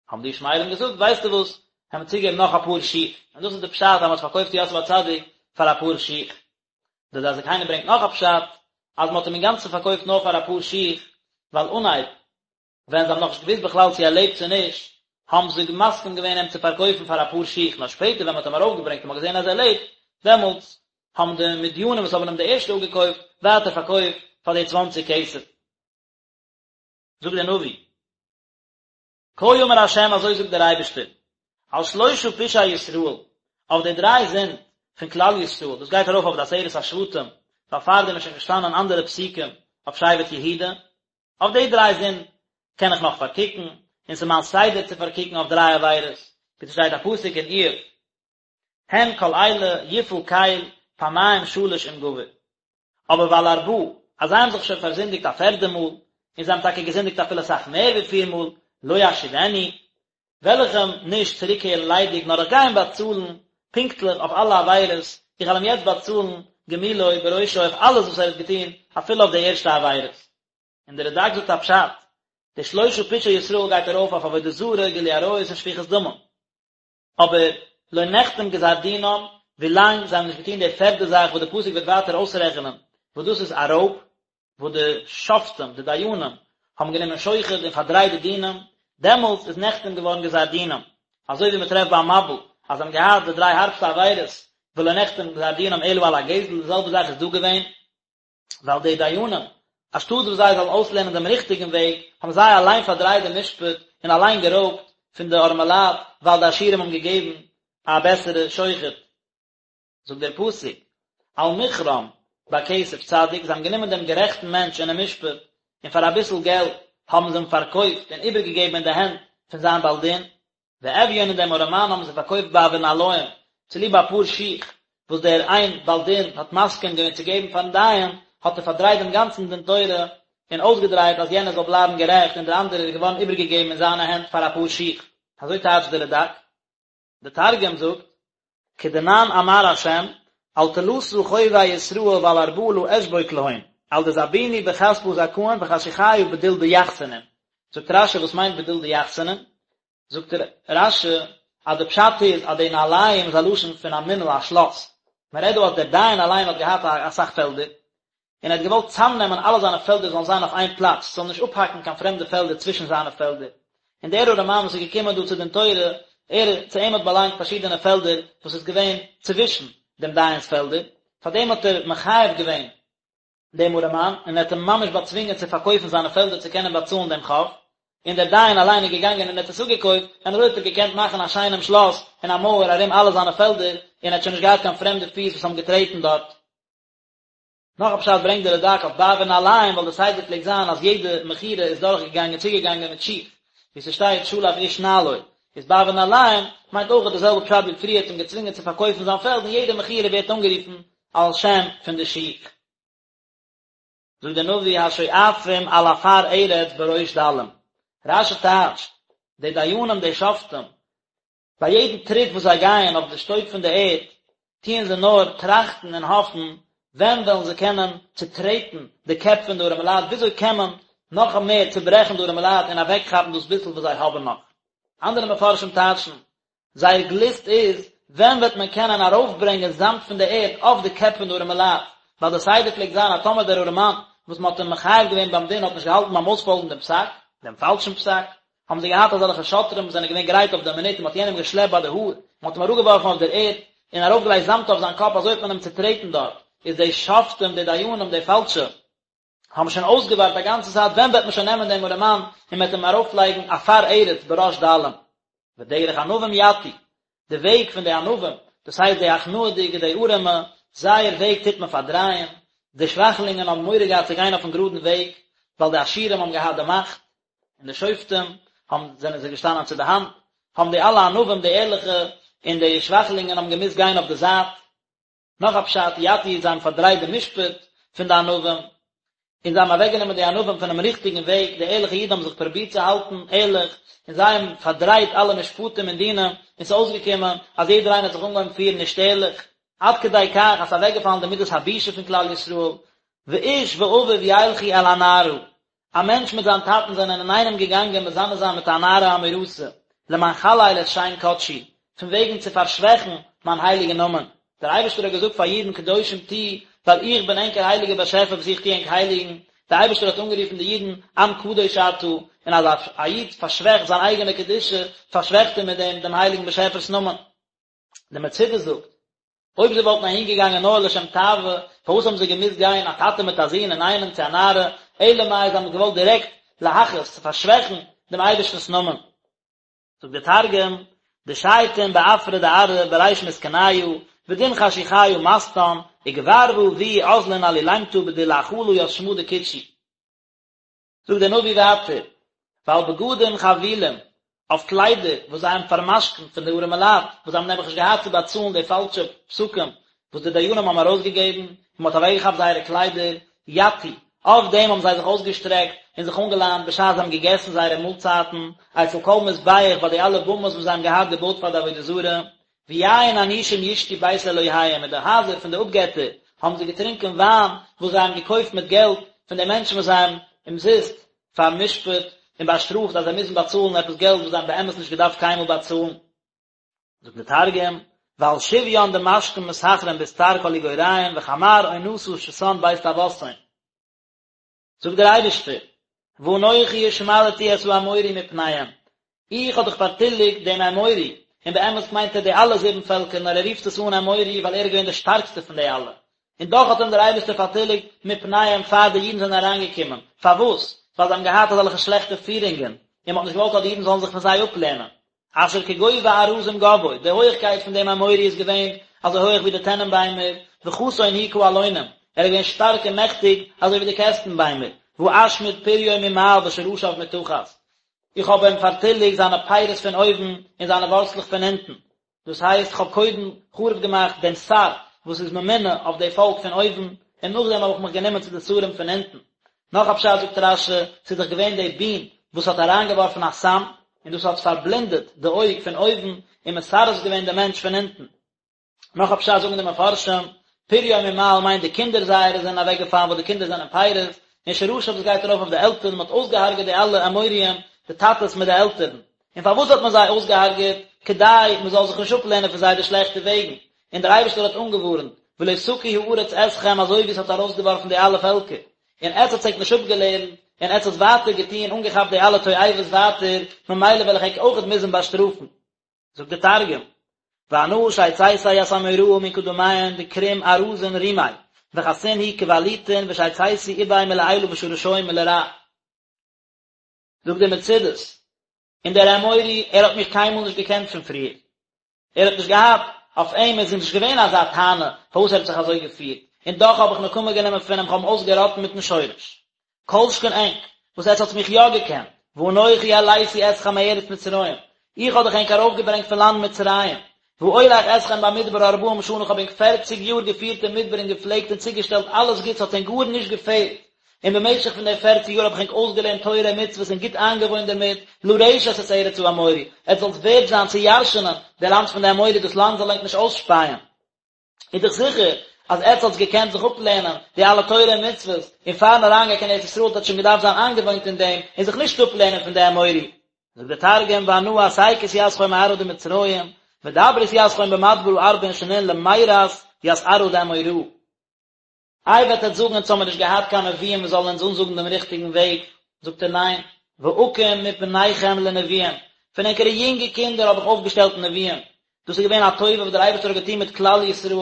Speaker 1: האבן די ישמעאלים געזאגט, ווייסטו וואס, העמיר צוגעבן נאך אפאר שיך, און דאס איז די פשט אז מען האט פארקויפט יוסף הצדיק פאר אפאר שיך. דער דעת זקנים ברענגט נאך א פשט, אז מען האט אים אינגאנצן פארקויפט נאר פאר אפאר שיך, ווייל אנהייב, ווען זיי האבן נאכנישט געוואוסט בכלל צו ער לעבט צו נישט, האבן זיי מסכים געווען אים צו פארקויפן פאר אפאר שיך, נאר שפעטער ווען מען האט אים ארויפגעברענגט און מען האט געזען אז ער לעבט, דעמאלטס האבן די מדינים וואס האבן אים די ערשטע אפגעקויפט, ווייטער פארקויפט פאר די צוואנציג כסף. זאגט דער נביא. כה אמר ה' אזוי זאגט דער אייבערשטער, על שלשה פשעי ישראל, אויף די דריי זינד פון כלל ישראל, דאס גייט ארויף אויף די עשרת השבטים, ווייל פארדעם איז שוין געשטאנען אנדערע פסוקים אויף שבט יהודה, אויף די דריי זינד קען איך נאך פארקוקן, און ס'איז מיין סדר צו פארקוקן אויף דריי עבירות, ווי ס'שטייט א פסוק אין איוב, הן כל אלה יפעל קל פעמים שלש עם גבר. אבער ועל ארבעה, אז זיי האבן זיך שוין פארזינדיגט א פערדע מאל, און זיי האבן טאקע געזינדיגט אפילו אסאך מער ווי פיר מאל, לא אשיבנו, וועל איך אים נישט צוריקקערן ליידיג, נאר איך גיי אים באצאלן פונקטליך אויף אלע עבירות. איך וועל אים יעצט באצאלן גמולו בראשו אויף אלעס וואס ער האט געטון, אפילו אויף די ערשטע עבירות. און דער רד"ק זאגט א פשט, די שלשה פשעי ישראל גייט ארויף אויף עבודה זרה, גילוי עריות און שפיכות דמים. אבער לא נחתם גזר דינם, ווילאנג זיי האבן נישט געטון די פערדע זאך וואס די פסוק וועט ווייטער אויסרעכענען, וואס דאס איז א רויב, וואס די שופטים, די דיינים, האבן גענומען שוחד און פארדרייט די דינים, דעמאלטס איז נחתם געווארן גזר דינם, אזוי ווי מען טרעפט ביים מבול, אז זיי האבן געהאט די דריי הארבסטע עבירות, ולא נחתם גזר דינם אלא על הגזל, די זעלבע זאך איז דא געווען, ווייל די דיינים, אנשטאט וואס זיי זאלן אויסלערנען דעם ריכטיגן וועג, האבן זיי אליין פארדרייט דעם משפט און אליין גערויבט פון די ארעמעלייט, ווייל די עשירים האבן געגעבן א בעסערע שוחד. זאגט דער פסוק, על מכרם בכסף צדיק, זיי האבן גענומען דעם גערעכטן מענטש אינעם משפט, און פאר אביסל געלט האבן זיי אים פארקויפט און איבערגעגעבן אין די הענט פון זיין בעל דין, ואביון און דעם ארעמאן האבן זיי פארקויפט בעבור נעליים, צוליב א פאר שיך וואס דער איין בעל דין האט מסכים געווען צו געבן פארן דיין, האט ער פארדרייט דעם גאנצן דין תורה און אויסגעדרייט אז יענער זאל בלייבן גערעכט און דער אנדערער איז געווארן איבערגעגעבן אין זיינע הענט פאר א פאר שיך. אזוי טייטשט דער רד"ק. דער תרגום זאגט, כדנן אמר ה', על תלתא חובי ישראל ועל ארבעה לא אשבוק להון, על דזבינו בכספא זכאין וחשוכיא בדיל דיחסנין. זאגט רש"י וואס מיינט בדיל דיחסנין? זאגט רש"י אז די פשט איז אז די נעליים איז א לשון פון א מנעל א שלאס, מען רעדט דא אז דער דיין אליין האט געהאט אסאך פעלדער, און ער האט געוואלט צאמנעמען אלע זיינע פעלדער זאלן זיין אויף איין פלאץ, ס'זאל נישט אפהאקן קיין פרעמדע פעלדער צווישן זיינע פעלדער, און דער ארעמאן וואס איז געקומען דא צו דין תורה, ער, צו אים האט באלאנגט פארשידענע פעלדער וואס איז געווען צווישן דעם דיין'ס פעלדער, פארדעם האט ער מחייב געווען דעם ארעמאן, און ער האט אים ממש באצווינגען צו פארקויפן זיינע פעלדער צו קענען באצאלן דעם חוב, און דער דיין אליין איז געגאנגען און האט עס אפגעקויפט, און אזוי האט ער געקענט מאכן א שיינעם שלאס און א מויער ארום אלע זיינע פעלדער, און ער האט שוין נישט געהאט קיין פרעמדע פיס וואס האבן געטרעטן דארט. נאך א פשט ברענגט דער רד"ק אויף בעבור נעליים, ווייל די סדר פלעגט זיין אז יעדע מכירה איז דורך געגאנגען צוגעגאנגען מיט שיך, ווי ס'שטייט שלף איש נעלו, איז בעבור נעליים מיינט אויך די זעלבע פשט ווי פריער האט אים געצווינגען צו פארקויפן זיין פעלד און יעדע מכירה ווערט אנגערופן על שם פון די שיך. זאגט דער נביא השואפים על עפר ארץ בראש דלים, רש"י טייטשט, די דיינים די שופטים, ביי יעדן טריט וואס זיי גייען אויף די שטויב פון די ערד, טוען זיי נאר טראכטן און האפן, ווען וועלן זיי קענען צוטרעטן די קעפ פון די ארעמעלייט, וויאזוי קען מען נאך מער צוברעכן די ארעמעלייט און אוועקכאפן דאס ביסל וואס זיי האבן נאך. אנדערע מפרשים טייטשן, זייער גליסט איז, ווען וועט מען קענען ארויפברענגען זאמד פון די ערד אויף די קעפ פון די ארעמעלייט, ווייל די סדר פלעגט זיין אז טאמער דער ארעמאן וואס מען האט אים מחייב געווען ביים דין האט נישט געהאלטן ביים אויספאלגן דעם פסק, דעם פאלשן פסק, האבן זיי געהאט אזעלכע שוטרים וואס זענען געווען גרייט אויף די מינוט און מען האט יענעם געשלעפט ביי די האר, מען האט אים אראפגעווארפן אויף דער ערד און ארויפגעלייגט זאמד אויף זיין קאפ, אזוי האט מען אים צוטרעטן דארט, איז די שופטים, די דיינים, די פאלשע, האבן שוין אויסגעווארט א גאנצע צייט ווען וועט מען שוין נעמען דעם ארעמאן און מען וועט אים ארויפלייגן עפר ארץ בראש דלים. ודרך ענווים יטו, די וועג פון די ענווים, דאס הייסט די הכנעה'דיגע, די ארעמע, זייער וועג טוט מען פארדרייען, די שוואכלינגען האבן מורא געהאט צו גיין אויפן גראדן וועג, ווייל די עשירים האבן געהאט די מאכט, און די שופטים האבן זענען זיי געשטאנען צו די האנט, האבן די אלע ענווים, די ערליכע, און די שוואכלינגען האבן געמוזט גיין אויף די זייט. נאך א פשט, יטו זיי האבן פארדרייט די משפט פון די ענווים, און זיי האבן אוועקגענומען די ענווים פונעם ריכטיגן וועג, די ערליכע אידן האבן זיך פרובירט צו האלטן ערליך, און זיי האבן פארדרייט אלע משפטים און דינים, און ס'איז אויסגעקומען אז יעדער איינער האט זיך אנגעהויבן פירן נישט ערליך, עד כדי כך אז ס'איז אוועקגעפאלן די מידת הבושה פון כלל ישראל, ואיש ואביו ילכו אל הנערה, א מענטש מיט זיין טאטן זענען אינאיינעם געגאנגען מזנה זיין מיט א נערה המאורסה, למען חלל את שם קדשי, פון וועגן צו פארשוועכן מיין הייליגן נאמען. דער אייבערשטער האט געזאגט פאר אידן קדושים תהיו, ווייל איך בין ענקער הייליגער באשעפער וואס איך טו ענק הייליגן. דער אייבערשטער האט אנגערופן די אידן עם קדוש אתה, און אז א איד פארשוועכט זיין אייגענע קדושה, פארשוועכט ער מיט דעם דעם הייליגן באשעפער'ס נאמען. דער מצודה זאגט, אויב זיי וואלטן אהין געגאנגען נאר לשם תאווה, פארוואס האבן זיי געמוזט גיין א טאטע מיט א זון אינאיינעם צו א נערה, אלא מאי זיי האבן געוואלט דירעקט להכעיס, צו פארשוועכן, דעם אייבערשטנ'ס נאמען. זאגט דער תרגום, דשייטין בעפרא דארעא בריש מסכניא, ודין חשוכיא מסטן, וגבר ואבוהו אזלין עלולימתא בדיל לאחלא ית שמא דקודשי. זאגט דער נביא ווייטער, ועל בגדים חבולים, אויף קליידער וואס זיי האבן פאר'משכנ'ט פון די ארעמע לייט, וואס זיי האבן נעבעך נישט געהאט צו באצאלן די פאלשע פסקים וואס די דיינים האבן ארויסגעגעבן, און מען האט אוועקגעכאפט זייערע קליידער, יטו, אויף דעם האבן זיי זיך אויסגעשטרעקט און זיך אנגעליינט בשעת זיי האבן געגעסן זייערע מאלצייטן, אצל כל מזבח ביי די אלע במות וואס זיי האבן געהאט געבויט פאר די עבודה זרה. ויין אנושים ישתו בית אלהיהם, אין די הייזער פון די אפגעטער האבן זיי געטרינקען וויין וואס זיי האבן געקויפט מיט געלט פון די מענטשן וואס זיי האבן אומזיסט פאר'משפט און באשטראפט אז זיי מוזן באצאלן עפעס געלט וואס זיי האבן באמת נישט געדארפט קיינמאל באצאלן. זאגט דער תרגום, ועל שביין דמשכון מסחרין בסטר כל איגוריהון וחמר אונסא שתן בית טעותהון. זאגט דער אייבערשטער, ואנכי השמדתי את האמורי מפניהם, איך האב דאך פארטיליגט דעם אמורי, און באמת מיינט ער די אלע זיבן פעלקער, נאר ער רופט עס אן אמורי ווייל ער איז געווען דער שטארקסטער פון די אלע, און דאך האט אים דער אייבערשטער פארטיליגט מפניהם פאר די אידן זענען אריינגעקומען, פארוואס? ווייל זיי האבן געהאט אזעלכע שלעכטע פירונגען, און מען האט נישט געוואלט אז די אידן זאלן זיך פון זיי אפלערנען. אשר כגובה ארזים גבהו, די הויעכקייט פון דעם אמורי איז געווען אזוי הויעך ווי די טענענביימער, וחסון הוא כאלונים, ער איז געווען שטארק און מעכטיג אזוי ווי די קעסטנביימער, ואשמיד פריו ממעל ושרשיו מתחת, איך האב אים פארטיליגט זיינע פירות פון אויבן און זיינע ווארצלעך פון אונטן, דאס הייסט איך האב קודם חרוב געמאכט דעם שר וואס איז ממונה אויף די פאלק פון אויבן, און נאכדעם האב איך מיך גענומען צו די שרים פון אונטן. נאך א פשט זאגט רש"י, ס'איז דאך געווען די בין וואס האט אריינגעווארפן א סם, און דאס האט פארבלינדעט די אויג פון אויבן און מסרס געווען די מענטש פון אונטן. נאך א פשט זאגן די מפרשים, פריו ממעל מיינט די קינדער זייערע זענען אוועקגעפאלן ווייל די קינדער זענען פירות, און שרשיו דאס גייט ארויף אויף די עלטערן, מען האט אויסגעהארגעט די אלע אמוריים, די טאטעס מיט די עלטערן. און פארוואס האט מען זיי אויסגעהארגעט? כדי מען זאל זיך נישט אפלערנען פון זיי די שלעכטע וועגן. און דער אייבערשטער האט אנגעווארנט, ולא תקיא הארץ אתכם אזוי ווי עס האט ארויסגעווארפן די אלע פעלקער, און עטס האטס ענק נישט אפגעלערנט, און עטס האטס ווייטער געטון, אנגעכאפט די אלע תועבות ווייטער, ממילא וועל איך ענק אויכעט מוזן באשטראפן. זאגט דער תרגום, ואנא שיציתיה ית אמוראה מן קדמיהון דכרום ארזין רומיה, וחסין הוא כבלוטין ושיציתי איביה מלעילא ושרשוהי מלרע. זאגט דער מצודות, און דער אמורי, ער האט מיך קיינמאל נישט געקענט פון פריער, ער האט נישט געהאט, אויף אים איז נישט געווען אזא טענה פארוואס ער האט זיך אזוי געפירט, און דאך האב איך נקמה גענומען פון אים, כ'האב אים אויסגעראטן מיטן שורש. כל שכן ענק, וואס עטס האטס מיך יא געקענט, ואנכי העליתי אתכם מארץ מצרים, איך האב דאך ענק ארויפגעברענגט פון לאנד מצרים, ואולך אתכם במדבר ארבעים שנה, איך האב ענק פערציג יאר געפירט אין מדבר און געפלעגט און צוגעשטעלט אלעס גוטס, האט ענק גארנישט געפעלט, און במשך פון די פערציג יאר האב איך ענק אויסגעלערנט תורה און מצוות און גוט איינגעוואוינט דערמיט, לרשת את ארץ האמורי, עטס זאלטס ווערד זיין צו ירש'נען די לאנד פון די אמורי, דאס לאנד זאל ענק נישט אויסשפייען. איז דאך זיכער אז עטס האטס געקענט זיך אפלערנען די אלע תורה און מצוות, און פארן אריינגיין קיין ארץ ישראל האט עטס שוין געדארפט זיין איינגעוואוינט אין דעם און זיך נישט אפלערנען פון די אמורי. זאגט דער תרגום ואנא אסיקית יתכון מארעא דמצרים, ודברית יתכון במדברא ארבעין שנין למירת ית ארעא דאמוראה. איי וועט עטס זאגן אונז האמיר נישט געהאט קיין נביאים וואס זאלן אונז אנזאגן דעם ריכטיגן וועג, זאגט ער ניין, ואקים מבניכם לנביאים, פון ענקערע יונגע קינדער האב איך אויפגעשטעלט נביאים, דאס איז געווען א טובה וואס דער אייבערשטער האט געטון מיט כלל ישראל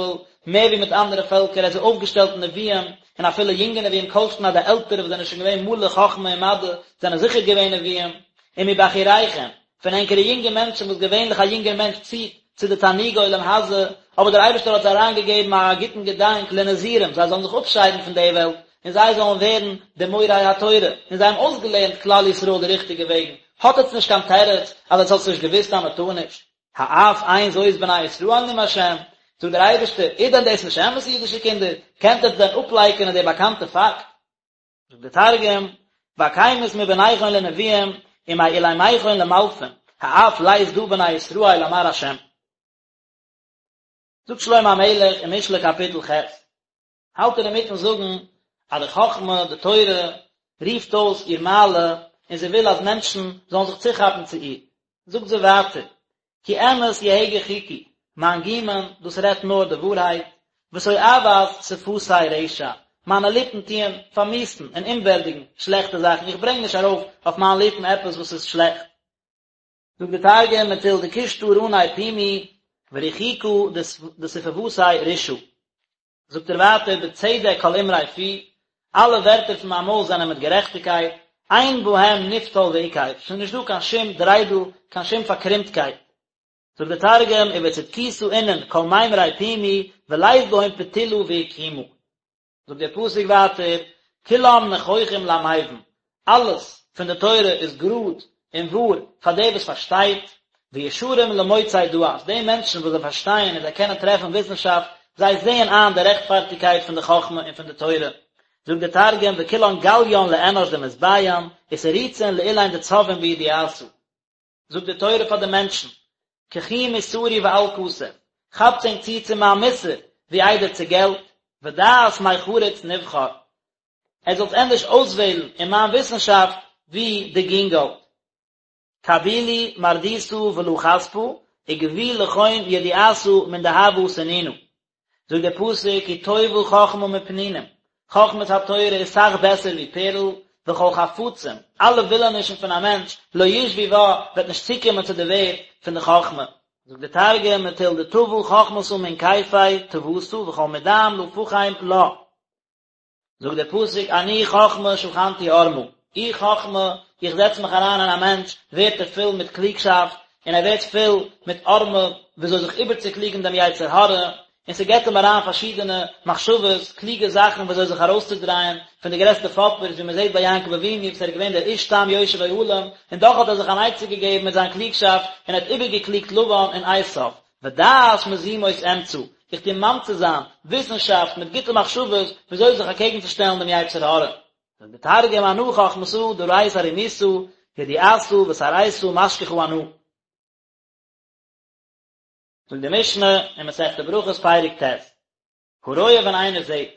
Speaker 1: מער ווי מיט אנדערע פעלקער, ער האט זיי אויפגעשטעלט נביאים, און אפילו יונגע נביאים, כל שכן אז די עלטערע וואס זענען שוין געווען מלא חכמה און מדע זענען זיכער געווען נביאים, ומבחוריכם, פון ענקערע יונגע מענטשן וואס געווענליך א יונגער מענטש ציט צו די תענוגי עולם הזה, אבער דער אייבערשטער האט זיי אריינגעגעבן א גוטן געדאנק לנזירים, זיי זאלן זיך אפשיידן פון די וועלט, און זיי זאלן ווערן די מורי התורה, און זיי האבן אויסגעלערנט כלל ישראל די ריכטיגע וועגן, האט עטס נישט קיין תירוץ אז עטס האטס נישט געוואוסט אז מען טאר נישט. האף אין זאת בני ישראל נאם השם, זאגט דער אייבערשטער, איז דען דאס נישט אמת אידישע קינדער, קענט עטס דען אפלייקענען די באקאנטע פאקט? זאגט דער תרגום, ואקימית מבניכון לנביאים, ומעולימיכון למלפין, האף לית דא בני ישראל אמר השם. זאגט שלמה המלך אין משלי קאפיטל ח', האלט ער אינמיטן זאגן אז די חכמה, די תורה, רופט אויס איר מעלה און זי וויל אז מענטשן זאלן זיך צוכאפן צו איר. זאגט זי ווייטער, כי אמת יהגה חכי, מיין גומען, דאס רעדט נאר די ווארהייט, ותועבת שפתי רשע, מיינע ליפן טוען פארמיאוסן און אומווערדיגן שלעכטע זאכן, איך ברענג נישט ארויף אויף מיין ליפן עפעס וואס איז שלעכט. זאגט דער תרגום, מטול דקושטא רני פומי, ורחיקא דשפוותיה רישעא. זאגט ער ווייטער בצדק כל אמרי פי, אלע ווערטער פון מיין מויל זענען מיט גערעכטיגקייט, אין בהם נפתול ועקב, ס'איז נישט דא קיין שום דריידל, קיין שום פארקרומטקייט. זאגט דער תרגום, ובצדקותא אינון כל מימרי פומי, ולית בהון פתילא ועקימא. זאגט דער פסוק ווייטער, כולם נכוחים למבין, אלעס פון די תורה איז גראד און וואר פאר דער וואס פארשטייט, וישרים למוצאי דעת, די מענטשן וואס זיי פארשטייען און זיי קענען טרעפן וויסנשאפט, זיי זעען איין די רעכטפארטיגקייט פון די חכמה און פון די תורה. זאגט דער תרגום, וכולן גליין לאנש דמתביין, ותריצין לאלין דצבין בידיעתא. זאגט די תורה פאר די מענטשן, קחו מוסרי ואל כסף, כאפטס ענק צו צו מיין מוסר, ווי איידער צו געלט, ודעת מחריץ נבחר, עטס זאלטס ענדערש אויסוועלן אין מיין וויסנשאפט ווי די גינגאלד. קבילו מרדותא ולא כספא, וגבו לכון ידיעתא מן דהבא סנינא. זאגט דער פסוק כי טובה חכמה מפנינים, חכמת התורה איז סאך בעסער ווי פערל, וכל חפצים, אלע ווילענישן פון א מענטש, לא ישוו בה, וועט נישט צוקומען צו די ווערד פון די חכמה. זאגט דער תרגום, מטול דטבא חכמתא מן כיפי טבתא וכל מדעם לא פחים לה. זאגט דער פסוק אני חכמה שכנתי ערמה, איך חכמה, איך זעץ מיך אריין אין א מענטש, ווערט ער פול מיט קלוגשאפט, און ער ווערט פול מיט ערמה, וויאזוי זיך איבערצוקלוגן דעם יצר הרע, און ס'געבט אים אריין פארשידענע מחשבות, קלוגע זאכן וויאזוי זיך ארויסצודרייען פון די גרעסטע פאפערס, ווי מ'זעט ביי יעקב אבינו וואס ער איז געווען דער איש תם יושב אוהלים, און דאך האט ער זיך אן עצה געגעבן מיט זיין קלוגשאפט, און ער האט איבערגעקלוגט לבן און עשיו. ודעת מזימות אמצא, איך טו ממציא זיין וויסנשאפט מיט גוטע מחשבות וויאזוי זיך אקעגן צו שטעלן דעם יצר הרע. זאגט דער תרגום אנא חכמתא דרית ערימותא ידיעתא ותרעיתא משכחא אנא. זאגט די משנה אין מסכת ברכות פרק ט', הרואה ווען איינער זעט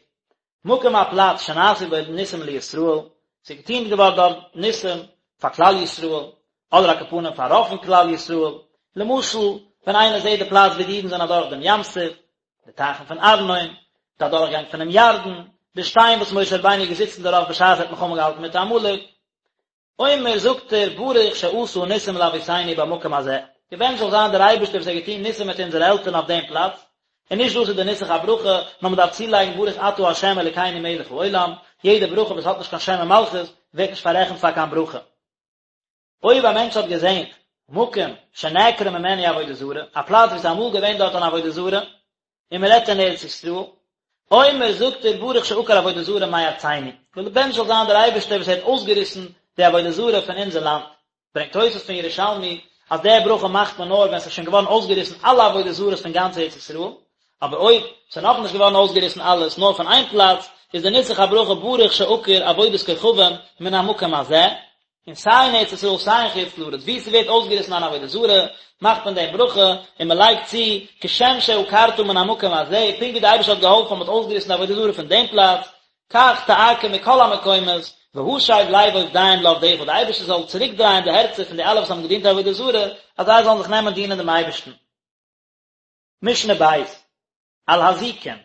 Speaker 1: מקום א פלאץ שנעשו בו ניסים לישראל, ס'איז געטון געווארן דארט ניסים פאר כלל ישראל, אדער על כל פנים פאר רוב פון כלל ישראל, למשל ווען איינער זעט די פלאץ ווי די אידן זענען אדורך דעם ים סוף, די טייכן פון ארנון, די אדורכגאנג פונעם ירדן, די שטיין וואס משה רבינו איז געזיצן דערויף בשעת ער האט מלחמה געהאלטן מיט עמלק, אומר זאגט ער ברוך שעשה ניסים לאבותינו במקום הזה, געבענטשט זאל זיין דער אייבערשטער וואס האט געטון ניסים מיט אונזערע עלטערן אויף דעם פלאץ, און נישט דאס איז די נוסח הברכה, נאר מען דארף צולייגן ברוך אתה ה' אלוקינו מלך העולם, יעדע ברכה וואס האט נישט קיין שם ומלכות ווערט נישט פאררעכנט פאר קיין ברכה. אויב א מענטש האט געזען מקום שנעקרה ממנו עבודה זרה, א פלאץ וואו ס'איז אמאל געווען דארט אן עבודה זרה, און מען רעדט אין ארץ ישראל, אומר זאגט ער ברוך שעקר עבודה זרה מארצינו, געבענטשט זאל זיין דער אייבערשטער וואס ער האט אויסגעריסן די עבודה זרה פון אונזער לאנד, ברענגט תוס' פון ירושלמי אז די ברכה מאכט מען נאר ווען ס'איז שוין געווארן אויסגעריסן אלע עבודה זרות פון גאנץ ארץ ישראל, אבער אויב ס'איז נאכנישט געווארן אויסגעריסן אלעס נאר פון איין פלאץ, איז די נוסח הברכה ברוך שעקר עבודת כוכבים מן המקום הזה, און סיי אין ארץ ישראל סיי אין חוץ לארץ וואו ס'ווערט אויסגעריסן אן עבודה זרה, מאכט מען דעם ברכה, און מ'לייגט צו, כשם שעקרת מן המקום הזה, פונקט ווי דער אייבערשטער האט געהאלפן אז מ'האט אויסגעריסן די עבודה זרה פון דעם פלאץ, כך תעקור מכל המקומות, והשב לב עובדיהם לעבדך, דער אייבערשטער זאל צוריקדרייען די הערצער פון די אלע וואס האבן געדינט עבודה זרה, אז זיי זאלן זיך נעמען דינען דעם אייבערשטן. משנה ב', על הזיקים.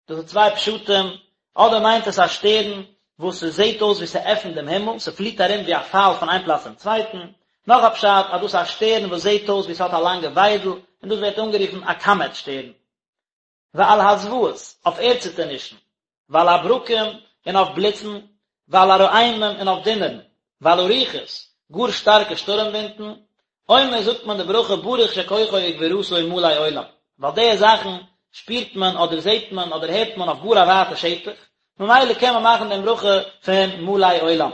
Speaker 1: דאס איז צוויי פשטים, אדער מיינט עס א שטערן וואס ס'זעט אויס ווי ס'עפנט דעם הימל, ס'פליט ארום ווי א פייל פון איין פלאץ צום צווייטן, נאך א פשט אז דאס איז א שטערן וואס זעט אויס ווי ס'האט א לאנגע וויידל, און דאס ווערט אנגערופן א קאמעט שטערן. ועל הזוועות, אויף ערדציטערנישן, ועל הברקים, און אויף בליצן, ועל הרעמים, און אויף דונערן, ועל הרוחות, גאר שטארקע שטורעם ווינטן, אומר זאגט מען די ברכה ברוך שכוחו וגבורתו מלא עולם, ווייל די זאכן שפירט מען אדער זעט מען אדער הערט מען אויף גאר א ווייטע שטח, ממילא קען מען מאכן דעם ברכה פון מלא עולם.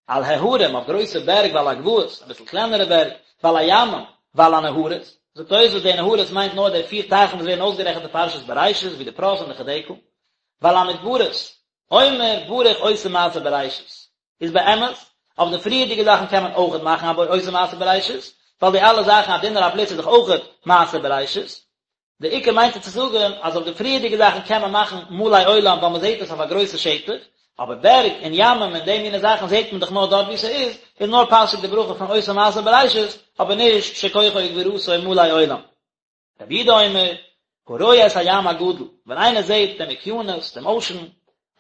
Speaker 1: על ההרים, אויף גרויסע בערג ועל הגבעות, אביסל קלענערע בערג, ועל הימים, ועל הנהרות, זאגט תוספות די נהרות מיינט נאר די פיר טייכן וואס ווערן אויסגערעכנט אין פרשת בראשית ווי די פרת און די חדקל, ועל המדברות, אומר ברוך עושה מעשה בראשית, איז באמת, אויף די פריערדיגע זאכן קען מען אויכעט מאכן א עושה מעשה בראשית, ווייל די אלע זאכן א דונער א בליץ איז דאך אויכעט מעשה בראשית, די עיקר מיינט ער צו זאגן אז אויף די פריערדיגע זאכן קען מען מאכן מלא עולם ווייל מען זעט עס אויף א גרויסע שטח, אבער בערג און ימים און די מיני זאכן זעט מען דאך נאר דארט וואו ס'איז, איז נאר פאסיג די ברכה פון עושה מעשה בראשית, אבער נישט שכוחו וגבורתו מלא עולם. רבי יהודה אומר, הרואה את הים הגדול, ווען איינער זעט דעם אוקיינוס, דעם אושען,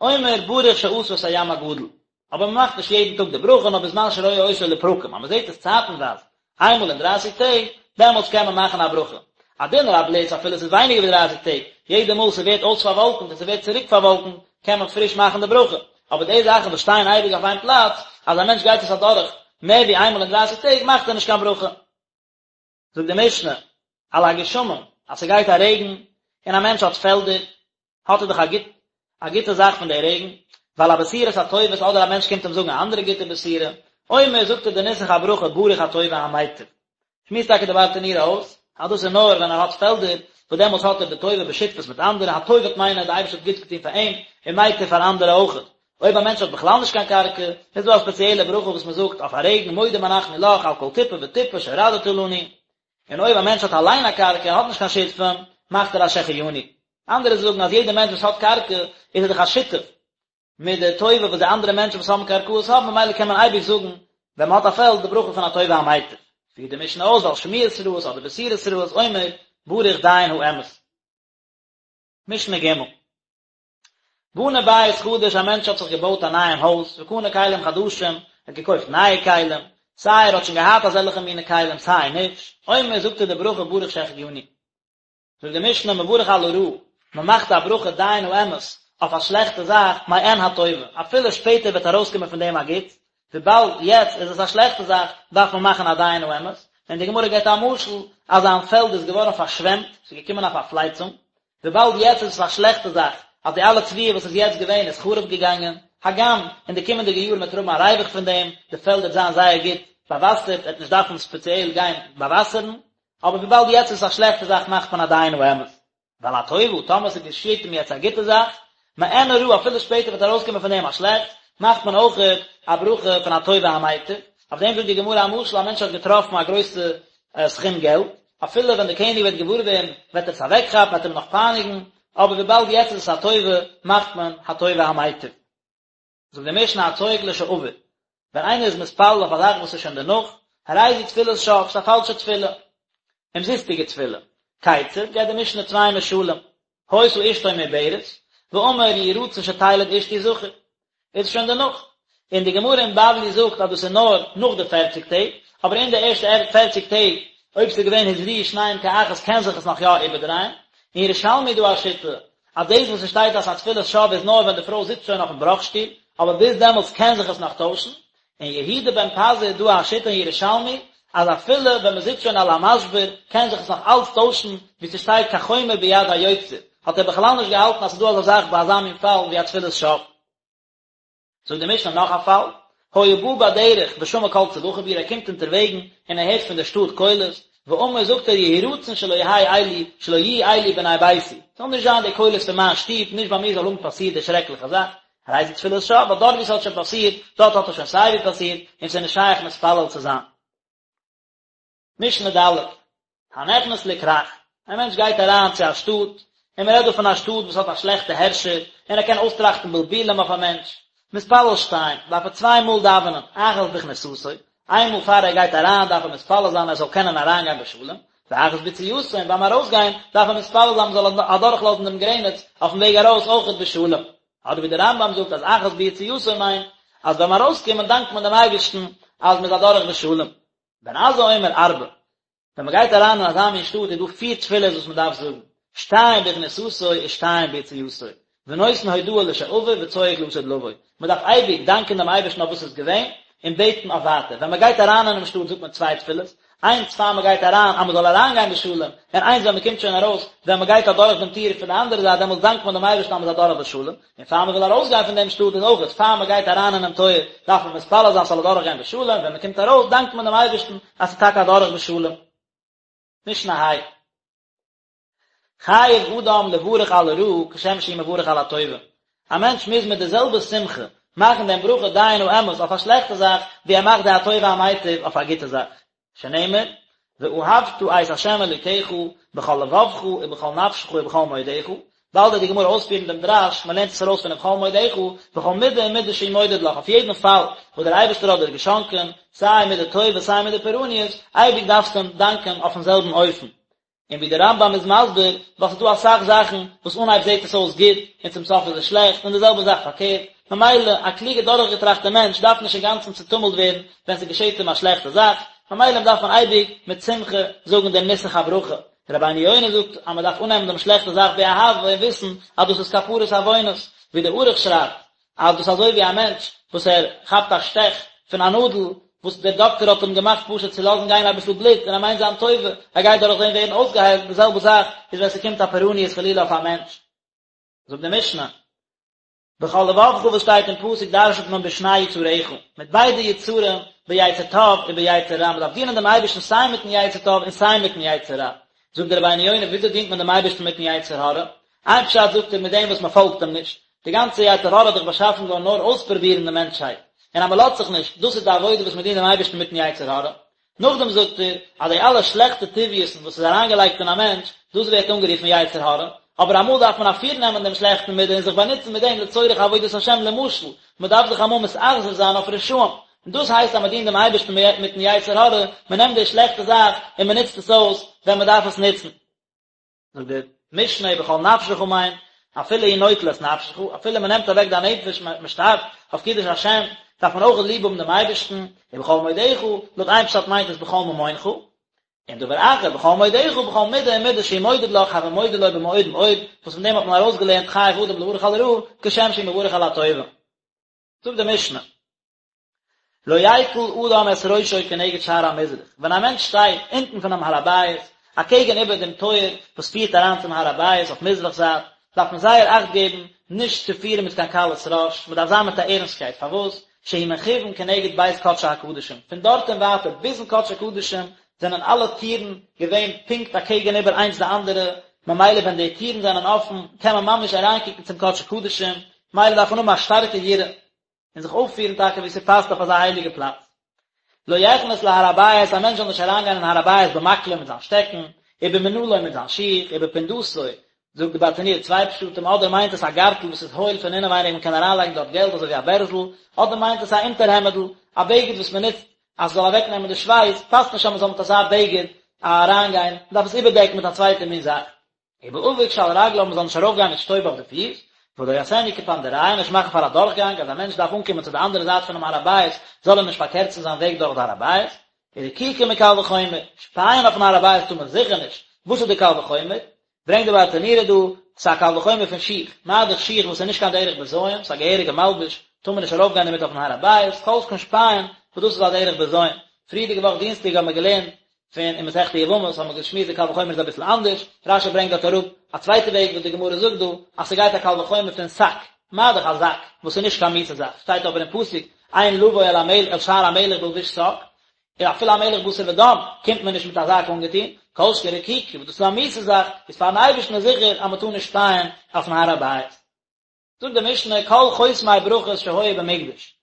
Speaker 1: אומר ברוך שעשה את הים הגדול, אבער מען מאכט נישט יעדן טאג די ברכה נאר בזמן שרואה אותו לפרקים, אז מען זעט עס צייטנווייז, איינמאל אין דרייסיג טעג, דעמאלטס קען מען מאכן א ברכה. א דונער א בליץ אפילו עס איז ווייניגער ווי דרייסיג טעג, יעדע מאל ס'ווערט אויס פארוואלקנט און ס'ווערט צוריק פארוואלקנט, קען מען פריש מאכן די ברכה. אבער די זאכן וואס שטייען אייביג אויף איין פלאץ, אז א מענטש גייט עס אדורך מער ווי איינמאל אין דרייסיג טעג, מאכט ער נישט קיין ברכה. זאגט די משנה, על הגשמים, אז ס'גייט א רעגן, און א מענטש האט פעלדער, האט ער דאך א גוט א גוטע זאך פון די רעגן, ועל הבשורות הטובות אדער א מענטש קומט אים זאגן א אנדערע גוטע בשורה, אומר זאגט ער די נוסח הברכה ברוך הטוב והמיטיב. שמועסט טאקע די ברטנורא אויס, אז דאס איז נאר ווען ער האט פעלדער, וואס דעמאלטס האט ער די טובה בשותפות מיט אנדערע, הטוב וועט מיינען אז די אייבערשטער האט גוטס געטון פאר אים, און מיטיב פאר אנדערע אויכעט. אויב א מענטש האט בכלל נישט קיין קרקע, איז דא א ספעציעלע ברכה וואס מען זאגט אויף א רעגן, מודים אנחנו לך על כל טיפה וטיפה שהורדת לנו. און אויב א מענטש האט אליין א קרקע און האט נישט קיין שותפים, מאכט ער א שהחיינו. אנדערע זאגן אז יעדער מענטש וואס האט קרקע איז ער דאך א שותף מיט די טובה וואס די אנדערע מענטשן וואס האבן קרקעות האבן, ממילא קען מען אייביג זאגן ווען מען האט א פעלד די ברכה פון הטוב והמיטיב. פירט די משנה אויס ועל שמועות רעות אדער בשורות רעות אומר ברוך דיין האמת. משנה ג'. בנה בית חדש א מענטש האט זיך געבויט א נייעם הויז, וקנה כלים חדשים, ער האט געקויפט נייע כלים, סיי ער האט שוין געהאט אזעלכע מיני כלים סיי נישט, אומר זאגט ער די ברכה ברוך שהחיינו. זאגט די משנה מברך על הרעה, מען מאכט א ברכה דיין האמת אויף א שלעכטע זאך מעין הטובה, אפילו שפעטער וועט ארויסקומען פון דעם א גוטס, וויבאלד יעצט איז עס א שלעכטע זאך דארף מען מאכן א דיין האמת, און די גמרא געבט א משל אז זיין פעלד איז געווארן פארשוועמט, ס'איז געקומען א פארפלייצונג, וויבאלד יעצט איז עס א שלעכטע זאך אז די אלע תבואה וואס איז יעצט געווען איז חרוב געגאנגען, הגם אין די קומענדיגע יארן וועט ער האבן א ריווח פון דעם, די פעלד וועט זיין זייער גוט באוואסערט, ער וועט נישט דארפן ספעציעל גיין באוואסערן, אבער וויבאלד יעצט איז עס א שלעכטע זאך מאכט מען א דיין האמת. ועל הטובה, טאמער ס'געשעט אים יעצט א גוטע זאך, מעין הרעה אפילו שפעטער וועט ארויסקומען פון דעם א שלעכטס, מאכט מען אויכעט א ברכה פון הטוב והמיטיב, אויף דעם זאגט די גמרא א משל, א מענטש האט געטראפן א גרויסע סכום געלט, אפילו ווען דער קעניג וועט געוואר ווערן וועט ער עס אוועקכאפן, וועט אים נאך פייניגן, אבער וויבאלד יעצט איז עס א טובה, מאכט מען הטוב והמיטיב. זאגט די משנה הצועק לשעבר, ווען איינער איז מתפלל אויף א זאך וואס איז שוין דערנאך, הרי זו תפילת שוא, ס'איז א פאלשע תפילה, אומזיסטיגע תפילה. כיצד, געבט די משנה צוויי משלים, היתה אשתו מעוברת, ואמר יהי רצון שתלד אשתי זכר, איז שוין דערנאך. און די גמרא אין בבלי זאגט אז דאס איז נאר נאך די פערציג טעג, אבער אין די ערשטע פערציג טעג, אויב ס'איז געווען הזריעו שניהם כאחת קען זיך עס נאך יא איבערדרייען. אין ירושלמי איז דא א שיטה אז דאס וואס עס שטייט אז ס'איז א תפילת שוא איז נאר ווען די פרוי זיצט שוין אויפן בראך-שטול, אבער ביז דעמאלטס קען זיך עס נאך טוישן. אין יהודה בן פזי איז דא א שיטה אין ירושלמי אז אפילו ווען מ'זיצט שוין על המשבר קען זיך עס נאך אלץ טוישן, ווי ס'שטייט כחומר ביד היוצר, האט ער בכלל נישט געהאלטן אז ס'איז דא אזא זאך ביי אזא מין פאל ווי א תפילת שוא. זאגט די משנה נאך א פאל, היה בא בדרך ושמע קול צווחה בעיר ער קומט אונטערוועגן און ער הערט פון די שטאט קולות, ואמר זאגט ער יהי רצון שלא יהא אלו שלא יהיו אלו בני ביתי, ס'זאל נישט זיין די קולות פון מיין שטוב, נישט ביי מיר זאל האבן פאסירט די שרעקליכע זאך, הרי זו תפילת שוא, ווייל דארט ווי ס'האט שוין פאסירט, דארט האט עס שוין סייווי פאסירט, און ס'איז נישט שייך מתפלל צו זיין. משנה ד', הנכנס לכרך, א מענטש גייט אריין צו א שטאט, און מען רעדט דא פון א שטאט וואס האט א שלעכטע הערשער, און ער קען אויסטראכטן בלבולים אויף א מענטש, מתפלל שתיים, דארף ער צוויי מאל דאווענען, אחת בכניסתו, איין מאל פאר ער גייט אריין דארף ער מתפלל זיין ער זאל קענען אריינגיין בשלום, ואחת ביציאתו, און ביים ארויסגיין דארף ער מתפלל זיין מען זאל אדורכלאזן דעם גרעניץ אויפן וועג ארויס אויכעט בשלום. אדער ווי דער רמב"ם זאגט אז אחת ביציאתו מיינט אז ביים ארויסקומען דאנקט מען דעם אייבערשטן אז מען איז אדורך בשלום. בן עזאי אומר ארבע, ווען מען גייט אריין אין אזא מין שטאט איז דא פיר תפילות וואס מען דארף זאגן, שתיים בכניסתו ושתיים ביציאתו, ונותן הודאה לשעבר וצועק לעתיד לבוא, מען דארף אייביג דאנקען דעם אייבערשטן אויף וואס איז געווען, און בעטן אויף ווייטער, ווען מען גייט אריין אינעם שטאט זאגט מען צוויי תפילות, איינס פאר מען גייט אריין אז מען זאל אריינגיין בשלום, און איינס ווען מען קומט שוין ארויס, ווען מען גייט אדורך דעם טיר פון די אנדערע זייט דעמאלטס דאנקט מען דעם אייבערשטן אז מען איז אדורך בשלום, און פאר מען וויל ארויסגיין פון דעם שטאט איז אויך פאר מען גייט אריין אינעם טויער דארף מען מתפלל זיין ס'זאל אדורך גיין בשלום, ווען מען קומט ארויס דאנקט מען דעם אייבערשטן אז ס'איז טאקע אדורך בשלום. משנה ה'. חייב אדם לברך על הרעה כשם שהוא מברך על הטובה, א מענטש מוז מיט די זעלבע שמחה מאכן דעם ברכה דיין האמת אויף א שלעכטע זאך ווי ער מאכט די הטוב והמיטיב אויף א גוטע זאך, שנאמר, ואהבת את ה' אלוקיך בכל לבבך ובכל נפשך ובכל מאודך, באלד וועט די גמרא אויספירן דעם דרש, מען לערנט עס ארויס פון ובכל מאודך, בכל מידה ומידה שהוא מודד לך, אויף יעדן פאל וואס דער אייבערשטער האט דיר געשאנקען, סיי מידה טובה סיי מידה פורעניות, אייביג דארפסטו אים דאנקען אויפן זעלבן אופן. און ווי דער רמב"ם איז מסביר, ווייל ס'איז דא אסאך זאכן וואס אנהייב זעט עס אויס גוט און צום סוף איז עס שלעכט, און די זעלבע זאך פארקערט, ממילא א קלוגע דורכגעטראכטע מענטש דארף נישט אינגאנצן צוטומלט ווערן ווען ס'געשעט אים א שלעכטע זאך, ממילא דארף מען אייביג מיט שמחה זאגן דעם נוסח הברכה. רבינו יונה זאגט אז מען דארף אננעמען דעם שלעכטע זאך באהבה און וויסן אז דאס איז כפרת עוונות, ווי דער ערוך שרייבט אז דאס איז אזוי ווי א מענטש וואס ער כאפט א שטעך פון א נאדל וואס דער דאקטער האט אים געמאכט פשוט צו לאזן גיין אביסל בלוט און ער מיינט זיין טובה, ער גייט דורך דעם ווערן אויסגעהיילט, די זעלבע זאך איז ווען ס'קומט א פורעניות חלילה אויף א מענטש. זאגט די משנה, בכל לבבך וואס שטייט אין פסוק דרש'נט מען בשני יצריך, מיט ביידע יצרים, ביצר טוב וביצר רע, מען דארף דינען דעם אייבערשטן סיי מיט'ן יצר טוב און סיי מיט'ן יצר רע. זאגט דער רבינו יונה, וויאזוי דינט מען דעם אייבערשטן מיט'ן יצר הרע? איין פשט זאגט ער מיט דעם וואס מען פאלגט אים נישט, די גאנצע יצר הרע איז דאך באשאפן געווארן נאר אויספרובירן די מענטשהייט, און אז מען לאזט זיך נישט, דאס איז די עבודה וואס מען דינט דעם אייבערשטן מיטן יצר הרע. נאכדעם זאגט ער אז די אלע שלעכטע טבעיות'ן וואס איז אריינגעלייגט אין א מענטש, דאס ווערט אנגערופן יצר הרע, אבער אמאל דארף מען אפירנעמען דעם שלעכטן מידה און זיך באנוצן מיט דעם לצורך עבודת השם, למשל, מען דארף זיך אמאל מתאכזר זיין אויף רשעים, און דאס הייסט אז מען דינט דעם אייבערשטן מיטן יצר הרע, מען נעמט די שלעכטע זאך און מען נוצט עס אויס ווען מען דארף עס נוצן. זאגט די משנה ובכל נפשך מיינט אפילו הוא נוטל את נפשך, אפילו מען נעמט אוועק דיין נפש, מען שטארבט אויף קידוש השם, דארף מען אויך ליב האבן דעם אייבערשטן, ובכל מאודך, לויט איין פשט מיינט עס בכל ממונך, און דבר אחר, בכל מאודך, בכל מידה ומידה שהוא מודד לך, הוי מודה לו במאוד מאוד, וואס פון דעם האט מען ארויסגעלערנט חייב אדם לברך על הרעה, כשם שהוא מברך על הטובה. זאגט די משנה. לא יקל אדם את ראשו כנגד שער המזרח, ווען א מענטש שטייט אונטן פונעם הר הבית, אקעגן איבער דעם טויער וואס פירט אריין צום הר הבית אויף מזרח זייט, דארף מען זייער אכט געבן נישט צו פירן מיט קיין קלות ראש, מען דארף זיין מיט א ערנסטקייט, פארוואס? שהוא מכוון כנגד בית קדשי הקדשים, פון דארט און ווייטער ביזן קדשי קדשים זענען אלע טירן געווען פונקט אקעגן איבער איינס די אנדערע, ממילא ווען די טירן זענען אפן קען מען ממש אריינקוקן צום קדשי קדשים, ממילא דארף מען האבן א שטארקע יראה. און זיך אויפפירן טאקע ווי ס'פאסט אויף אזא הייליגע פלאץ. לא יכנס להר הבית, א מענטש זאל נישט אריינגיין אין הר הבית במקלו מיט זיין שטעקן, ובמנעלו מיט זיין שיך, ובפונדתו, זאגט די ברטנורא צוויי פשטים, אדער מיינט עס א גארטל וואס איז הויל פון אינעווייניג מען קען אריינלייגן דארט געלט אזוי ווי א בערזל, אדער מיינט עס א אונטערהעמעדל, א בגד וואס מען נוצט אז ס'זאל אוועקנעמען די שווייס, פאסט נישט אז מען זאל מיט אזא בגד אריינגיין, מען דארף עס איבערדעקן מיט א צווייטע מין זאך. ובאבק שעל רגליו מען זאל נישט ארויף גיין מיט שטויב אויף די פיס, ולא יעשנו קפנדריא נישט מאכן פאר א דורכגאנג אז א מענטש דארף אנקומען צו די אנדערע זייט פונעם הר הבית זאל ער נישט פארקערצן זיין וועג דורך די הר הבית, ורקיקה מקל וחומר, שפייען אויפן הר הבית טאר מען זיכער נישט, וואס איז די קל וחומר? ברענגט די ברטנורא דא, ס'איז א קל וחומר פון שיך, מה דאך שיך וואס איז נישט קיין דרך בזיון, ס'איז א געהעריגע מלבוש, טאר מען נישט ארויף גיין דערמיט אויפן הר הבית, כל שכן שפייען, וואס דאס איז א דרך בזיון. פריערדיגע וואך דינסטאג האבן מיר געלערנט פון אין מסכת יבמות האבן מיר געשמועסט די קל וחומר איז אביסל אנדערש, רש"י ברענגט דארט אראפ א צווייטע וועג וואס די גמרא זאגט דא, אז ס'גייט א קל וחומר פון שק, מה דאך א זאק, וואס איז נישט קיין מיאוסע זאך, שטייט אבער אין פסוק, אין לבוא אל המלך אל שער המלך בלבוש שק, און אפילו א מלך בשר ודם קומט מען נישט מיט א זאק אנגעטון, כל שכן רקיקה וואס דאס איז א מיאוסע זאך, איז פארן אייבערשטן איז זיכער אז מ'טאר נישט שפייען אויפן הר הבית. זאגט די משנה כל חותמי ברכות שהיו במקדש,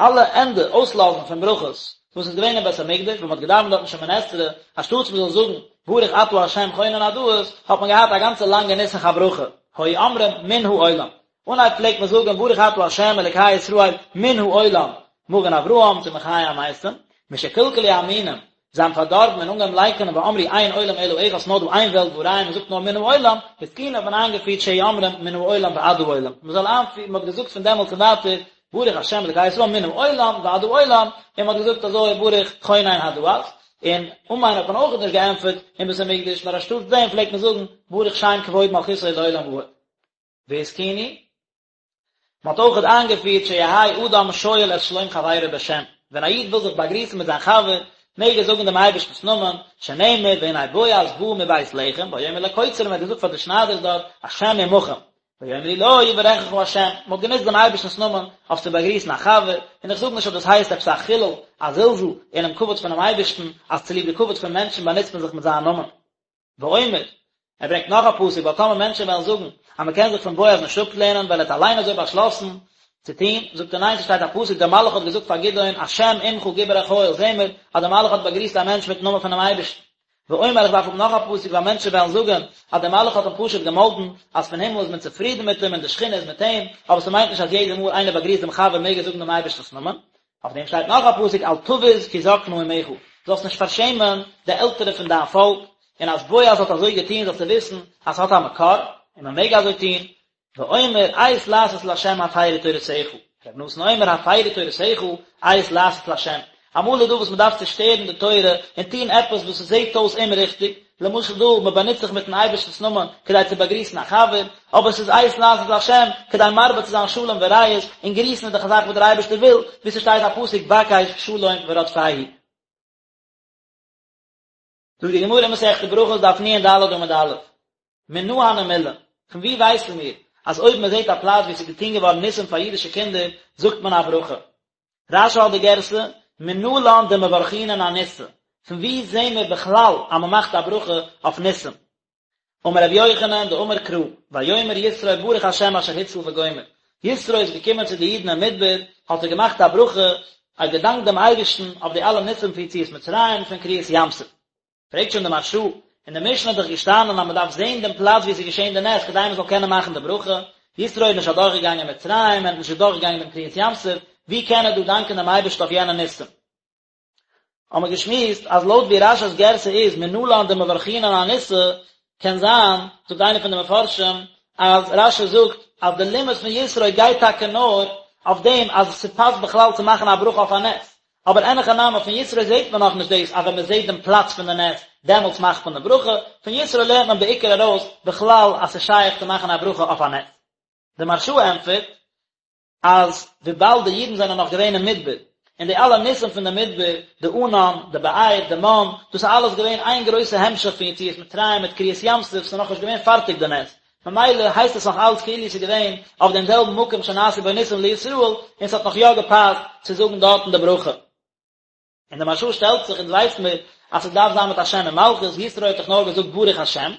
Speaker 1: אלע ענדע אויסלאזן פון ברכות וואס איז געווען אין בית המקדש ווען מען האט געדאווענט דארטן שמונה עשרה, אנשטאטס מען זאל זאגן ברוך אתה ה' חונן הדעת, האט מען געהאט א גאנצע לאנגע נוסח הברכה, היו אומרים מן העולם. אנהייב פלעגט מען זאגן ברוך אתה ה' אלקי ישראל מן העולם, מגן אברהם צו מחיה המתים, משקלקלו המינים, זיי האבן פארדארבן און אנגעהויבן לייקענען ואמרו אין עולם אלא אחד ס'נאר דא איין וועלט והא ראיה מען זאגט נאר מן העולם, התקינו האט מען איינגעפירט שיהו אומרים מן העולם ועד העולם, מען זאל איינפירן, מען האט געזאגט פון דעמאלטס און ווייטער ברוך השם אלקי ישראל מן העולם ועד העולם, און מען האט געזאגט אזוי ברוך חונן הדעת, און אמן האט מען אויך נישט געענטפערט אין בית המקדש נאר אנשטאטס דעם פלעגט מען זאגן ברוך שם כבוד מלכותו לעולם ועד. והתקינו. מען האט אויכעט איינגעפירט שיהא אדם שואל את שלום חברו בשם, ווען א איד וויל זיך באגריסן מיט זיין חבר, מעג ער זאגן דעם אייבערשטנ'ס נאמען, שנאמר והנה בועז בא מבית לחם, ויאמר לקוצרים, ער האט געזאגט פאר די שניידערס דארט, השם עמכם, ויאמרו לו יברכך השם, מען האט גענוצט דעם אייבערשטנ'ס נאמען אויף צו באגריסן א חבר, און איך זאג נישט אז דאס הייסט עפעס א חילול, א זלזול אינעם כבוד פונעם אייבערשטן, אז צוליב די כבוד פון מענטשן באנוצט מען זיך מיט זיין נאמען. ואומר, ער ברענגט נאך א פסוק, ווייל טאמער מענטשן וועלן זאגן אז מען קען זיך פון בועז נישט אפלערנען ווייל ער האט אליין אזוי באשלאסן צו טון, זאגט ער ניין ס'שטייט א פסוק דער מלאך האט געזאגט פאר גדעון השם עמך גיבור החיל, זעהן מיר אז דער מלאך האט באגריסט א מענטש מיטן נאמען פונעם אייבערשטן. ואומר איך דארף האבן נאך א פסוק ווייל מענטשן וועלן זאגן אז דער מלאך האט אים פשוט געמאלדן אז פון הימל איז מען צופרידן מיט אים און די שכינה איז מיט אים, אבער ס'מיינט נישט אז יעדע מאל איינער באגריסט דעם חבר מעג ער זאגן דעם אייבערשטנ'ס נאמען, אויף דעם שטייט נאך א פסוק אל תבוז כי זקנה אמך, זאלסט נישט פארשעמען די עלטערע פון דיין פאלק, און אז בועז האט אזוי געטון זאלסטו וויסן אז ס'האט א מקור, און מען מעג אזוי טון, ואומר עת לעשות לה' הפרו תורתך, ר' נתן אומר הפרו תורתך עת לעשות לה', אמאל איז דא וואס מען דארף צושטערן די תורה און טון עפעס וואס עס זעט אויס אומריכטיג, למשל דא, מען באנוצט זיך מיטן אייבערשטנ'ס נאמען כדי צו באגריסן א חבר, אבער עס איז עת לעשות לה' כדי מרבה צו זיין שלום ורעות, און גריסן איז דאך א זאך וואס דער אייבערשטער וויל, ווי ס'שטייט א פסוק בקש שלום ורדפהו. זאגט די גמרא אין מסכת ברכות דף נ"ד עמוד א', מנא הני מילי, פון וואו ווייסן מיר אז אויב מען זעט א פלאץ וואו עס איז געטון געווארן ניסים פאר אידישע קינדער זאגט מען א ברכה? רש"י האט די גירסא, מנלן דמברכינן אניסא, פון וואו זעהן מיר בכלל אז מען מאכט א ברכה אויף ניסים? אמר רבי יוחנן דאמר קרא, ויאמר יתרו ברוך השם אשר הציל וגומר, יתרו איז געקומען צו די אידן אין מדבר, האט ער געמאכט א ברכה. ער האט געדאנקט דעם אייבערשטן אויף די אלע ניסים פון יציאת מצרים און פון קריעת ים סוף. פרעגט שוין די מהרש"א, אין די משנה איז דאך געשטאנען אז מען דארף זען דעם פלאץ וואו עס איז געשען די נס כדי מען זאל קענען מאכן די ברכה, יתרו איז נישט אדורכגעגאנגען מצרים, ער איז נישט אדורכגעגאנגען דעם קריעת ים סוף, ווי קען ער דא דאנקען דעם אייבערשטן אויף יענע ניסים? האבן מיר געשמועסט אז לויט ווי רש"י'ס גירסא איז מנלן דמברכינן אניסא, קען זיין, זאגט איינער פון די מפרשים, אז רש"י זאגט אז די לימוד פון יתרו גייט טאקע נאר אויף דעם אז ס'פאסט בכלל צו מאכן א ברכה אויף א נס, אבער אין הכי נמי פון יתרו זעט מען נאכנישט דאס אז ווען מ'זעט דעם פלאץ פון די נס דעמאלטס מאכט מען די ברכה, פון יתרו לערנט מען בעיקר ארויס בכלל אז ס'איז שייך צו מאכן א ברכה אויף א נס. די מהרש"א ענטפערט אז וויבאלד די אידן זענען נאך געווען אין מדבר, און די אלע ניסים פון די מדבר, די ענן, די באר, די מן, דאס איז אלעס געווען איין גרויסע המשך פון יציאת מצרים מיט קריעת ים סוף, ס'איז נאכנישט געווען פארטיג די נס, ממילא הייסט עס נאך אלץ כאילו ס'איז געווען אויף דעם זעלבן מקום שנעשו בו ניסים לישראל, און ס'האט נאך יא געפאסט צו זאגן דארטן די ברכה. און די מהרש"א שטעלט זיך, אונז ווייס מיר אז ס'דארף זיין מיט א שם ומלכות, יתרו האט דאך נאר געזאגט ברוך השם,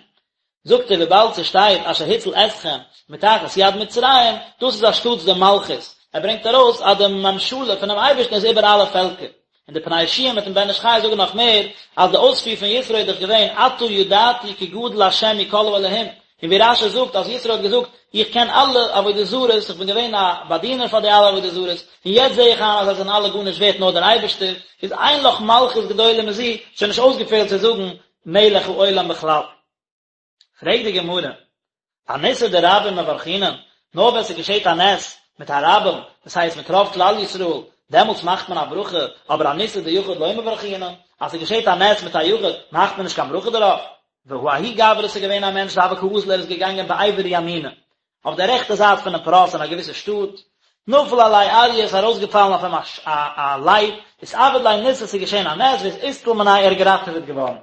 Speaker 1: זאגט ער וויבאלד ס'שטייט אשר הציל אתכם מתחת יד מצרים, דאס איז אנשטאטס די מלכות, ער ברענגט ארויס אז די ממשלה פונעם אייבערשטן איז איבער אלע פעלקער, און די פני יהושע מיטן בן איש חי זאגן נאך מער, אז די אויספיר פון יתרו איז דאך געווען עתה ידעתי כי גדול השם מכל האלהים, און ווי רש"י זאגט אז יתרו האט געזאגט, איך קען אלע עבודה זרות, איך בין געווען א באדינער פאר די אלע עבודה זרות, און יעצט זע איך איין אז זיי זענען אלע גארנישט ווערט נאר דער אייבערשטער, איז אין לך מלכות גדולה מזו, שוין נישט אויסגעפעלט צו זאגן מלך העולם בכלל. פרעגט די גמרא, אניסא דרבים מברכינן, נאר ווען ס'געשעט א נס מיט א רבים, דאס הייסט מיט רוב כלל ישראל, דעמאלטס מאכט מען א ברכה, אבער אניסא דיחיד לא מברכינן, אז ס'געשעט א נס מיט א יחיד, מאכט מען נישט קיין ברכה דערויף. והא ההוא גברא ס'איז געווען א מענטש דהוה קאזיל ער איז געגאנגען בעבר ימינא, אויף די רעכטע זייט פונעם פרת אין א געוויסע שטאט, נפל עליה אריא איז ארויסגעפאלן אויף אים א לייב, אתעביד ליה ניסא ס'איז געשען א נס ואיתצל מיניה ער איז געראטעוועט געווארן.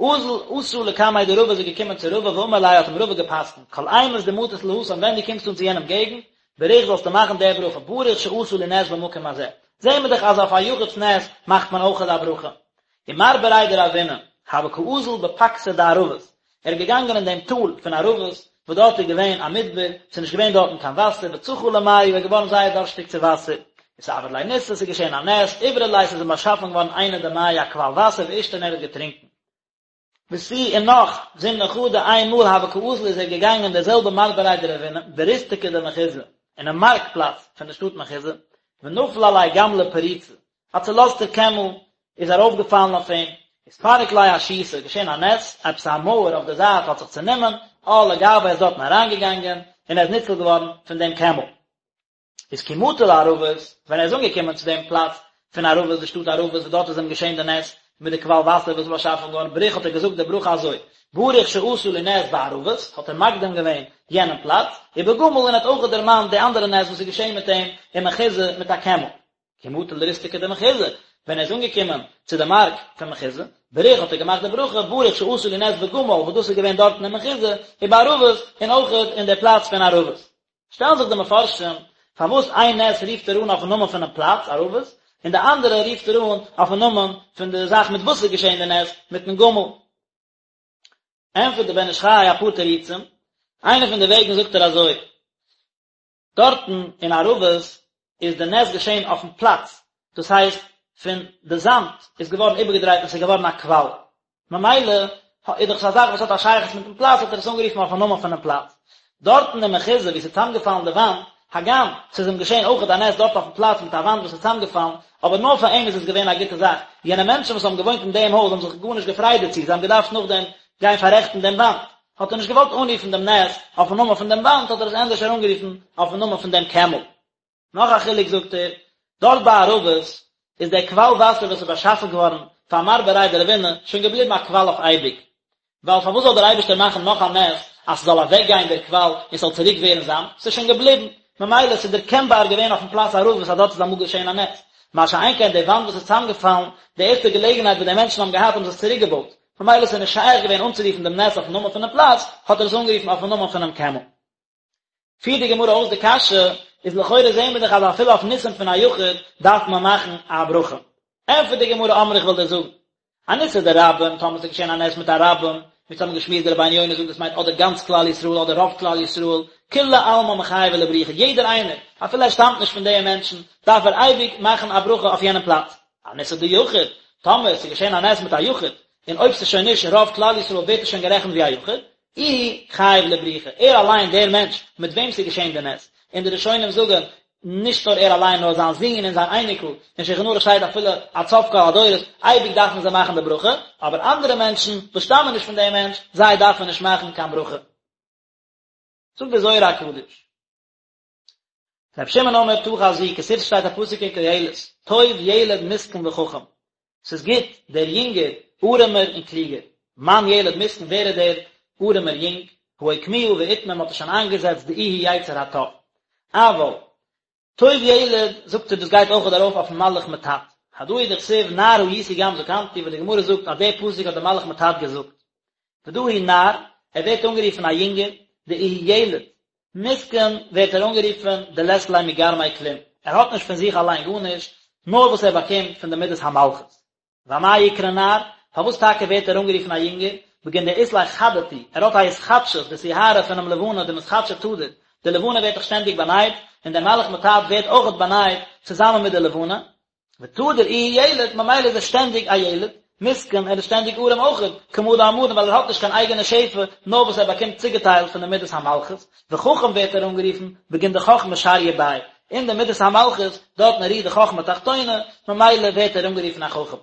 Speaker 1: אזל אתא לקמיה דרבא איז ער געקומען צו רבא ואמר ליה האט אים רבא געפסקנט, כל אימת דמטית להתם ווען דו קומסט אן צו יענעם געגנט, בריך זאלסטו מאכן די ברכה, ברוך שעשה לי נס במקום הזה. זעהן מיר דאך אז אויף א יחיד'ס נס מאכט מען אויכעט א ברכה. ומר בריה דרבינא, הוה קאזיל בפקתא דערבות, ער איז געגאנגען אין דעם טאל פון ערבות, וואס דארט איז געווען א מדבר, ס'איז נישט געווען דארטן קיין וואסער, וצחי למיא, ער איז געווארן זייער דארשטיג צו וואסער, אתעביד ליה ניסא, ס'איז געשען א נס, אברי ליה, ס'איז אים באשאפן געווארן עינא דמיא, א קוואל וואסער, ואישתי און ער האט געטרינקען. ותו און נאך, זימנא חדא, איין מאל הוה קאזיל איז ער געגאנגען דער זעלבער מר בריה דרבינא, בריסתקא דמחוזא, אינעם מארק פלאץ פון דער שטאט מחוזא, ונפל עליה גמלא פריצא, א צולאזטער קעמל איז ארויפגעפאלן אויף אים, אתפרק ליה אשיתא, געשען א נס, עפעס א מויער אויף די זייט האט זיך צענומען, על לגוה איז דארטן אריינגעגאנגען, און ער איז ניצול געווארן פון דעם קעמל. איז כי מטא לערבות, ווען ער איז אנגעקומען צו דעם פלאץ פון ערבות, די שטאט ערבות, וואס דארט איז אים געשען די נס, מיט די קוואל וואסער וואס איז באשאפן געווארן, בריך האט ער געזאגט די ברכה אזוי, ברוך שעשה לי נס בערבות, האט ער מקדים געווען יענעם פלאץ, ובגמל און האט אויך דערמאנט די אנדערע נס וואס איז געשען מיט אים אין מחוזא מיט א קעמל. כי מטא לריסתקא דמחוזא, ווען ער איז אנגעקומען צו די מארק פון מחוזא, בריך האט ער געמאכט די ברכה, ברוך שעשה לי נס בגמל, וואס דאס איז געווען דארטן אין מחוזא, ובערבות, און אויכעט אין די פלאץ פון ערבות. שטעלן זיך די מפרשים, פארוואס איין נס רופט ער אן אויפן נאמען פונעם פלאץ, ערבות, און די אנדערע רופט ער אן אויפן נאמען פון די זאך מיט וואס איז געשען די נס, מיטן גמל. ענטפערט דער בן איש חי אפאר תירוצים, איינע פון די וועגן זאגט ער אזוי, דארטן אין ערבות איז די נס געשען אויפן פלאץ, דאס הייסט פון די זאמד איז געווארן איבערגעדרייט און ס'איז געווארן א קוואל, ממילא איז דאך עס א זאך וואס האט א שייכות מיטן פלאץ האט ער עס אנגערופן אויפן נאמען פונעם פלאץ. דארטן אין מחוזא וואו ס'איז צוזאמגעפאלן די וואנט, הגם ס'איז אים געשען אויכעט א נס דארט אויפן פלאץ מיט א וואנט וואס איז צוזאמגעפאלן, אבער נאר פאר אים איז עס געווען א גוטע זאך, יענע מענטשן וואס האבן געוואוינט אין דעם הויז האבן זיך גארנישט געפרייט דערצו, זיי האבן געדארפט נאכדעם גיין פאררעכטן דעם וואנט, האט ער נישט געוואלט אנרופן דעם נס אויפן נאמען פון דעם וואנט, האט ער עס ענדערש אנגערופן אויפן נאמען פון דעם קעמל. נאך א חילוק זאגט ער, דארט ביי ערבות איז דער קוואל וואסער וואס איז באשאפן געווארן פאר מר בריה דרבינא שוין געבליבן א קוואל אויף אייביג, ווייל פארוואס זאל דער אייבערשטער מאכן נאך א נס אז ס'זאל אוועקגיין דער קוואל און ס'זאל צוריק ווערן זאמד, ס'איז שוין געבליבן, ממילא ס'איז דערקענבאר געווען אויפן פלאץ ערבות אז דארט איז אמאל געשען א נס, מה שאין כן די וואנט וואס איז צוזאמגעפאלן, די ערשטע געלעגנהייט וואס די מענטשן האבן געהאט האבן זיי עס צוריקגעבויט, ממילא ס'איז נישט שייך געווען אנצורופן דעם נס אויפן נאמען פונעם פלאץ, האט ער עס אנגערופן אויפן נאמען פונעם קעמל. פירט די גמרא אויס די קשיא, איז לכאורה זעהן מיר דאך אז אפילו אויף ניסים פון א יחיד דארף מען מאכן א ברכה. ענטפערט די גמרא אמרי איך וועל דיר זאגן, אניסא דרבים, טאמער ס'איז געשען א נס מיט א רבים, ווי אונז האבן געשמועסט דער רבינו יונה זאגט דאס מיינט אדער גאנץ כלל ישראל אדער רוב כלל ישראל, כולי עלמא מיחייבי לברוכי, יעדער איינער, אפילו ער שטאמט נישט פון די מענטשן, דארף ער אייביג מאכן א ברכה אויף יענעם פלאץ. אניסא דיחיד, טאמער ס'איז געשען א נס מיט א יחיד, און אויב ס'איז שוין נישט רוב כלל ישראל ווערט עס שוין גערעכנט ווי א יחיד, איהו חייב לברוכי, ער אליין דער מענטש מיט וועם ס'איז געשען די נס, און די ראשונים זאגן, נישט נאר ער אליין נאר זיין זון און זיין אייניקל, אין שולחן ערוך שטייט אפילו עד סוף כל הדורות, אייביג דארפן זיי מאכן די ברכה, אבער אנדערע מענטשן וואס שטאמען נישט פון דעם מענטש, זיי דארפן נישט מאכן קיין ברכה. זאגט דער זוהר הקדוש. רבי שמעון אומר תא חזי, כתיב ס'שטייט א פסוק אין קהלת, טוב ילד מסכן וחכם, ס'איז גוט דער יונגער ארעמער און קלוגער, מאן ילד מסכן ווער איז דער ארעמער יונג, הא אוקמוה ואתמר מ'האט עס שוין איינגעזעצט דאיהו יצר הטוב, אבל טוב ילד זאגט ער דאס גייט אויכעט ארויף אויפן מלאך מט"ט, הדא הוא דכתיב נער הייתי גם זקנתי וואס די גמרא זאגט אז דער פסוק האט דער מלאך מט"ט געזאגט, ודא הוא נער, ער ווערט אנגערופן א יונגער, דאיהו ילד, מסכן ווערט ער אנגערופן דלית ליה מגרמיה כלום, ער האט נישט פון זיך אליין גארנישט, נאר וואס ער באקומט פון די מידת המלכות. ואמאי אקרי נער, פארוואס טאקע ווערט ער אנגערופן א יונגער, בגין דאית ליה חדתו, ער האט א התחדשות, די סיהרא פונעם לבנה דמתחדשא תדיר, די לבנה ווערט דאך שטענדיג באנייט, און דער מלאך מט"ט ווערט אויכעט באנייט צוזאמען מיט די לבנה, ותדיר איהו ילד, ממילא איז ער שטענדיג א ילד, מסכן, ער איז שטענדיג ארעם אויכעט, כמה דאמרן ווייל ער האט נישט קיין אייגענע שפע, נאר וואס ער באקומט צוגעטיילט פון די מידת המלכות, וחכם ווערט ער אנגערופן, בגין דחכמה שריא ביה, אין די מידת המלכות, דארטן רוהט די חכמה תחתונה, ממילא ווערט ער אנגערופן א חכם.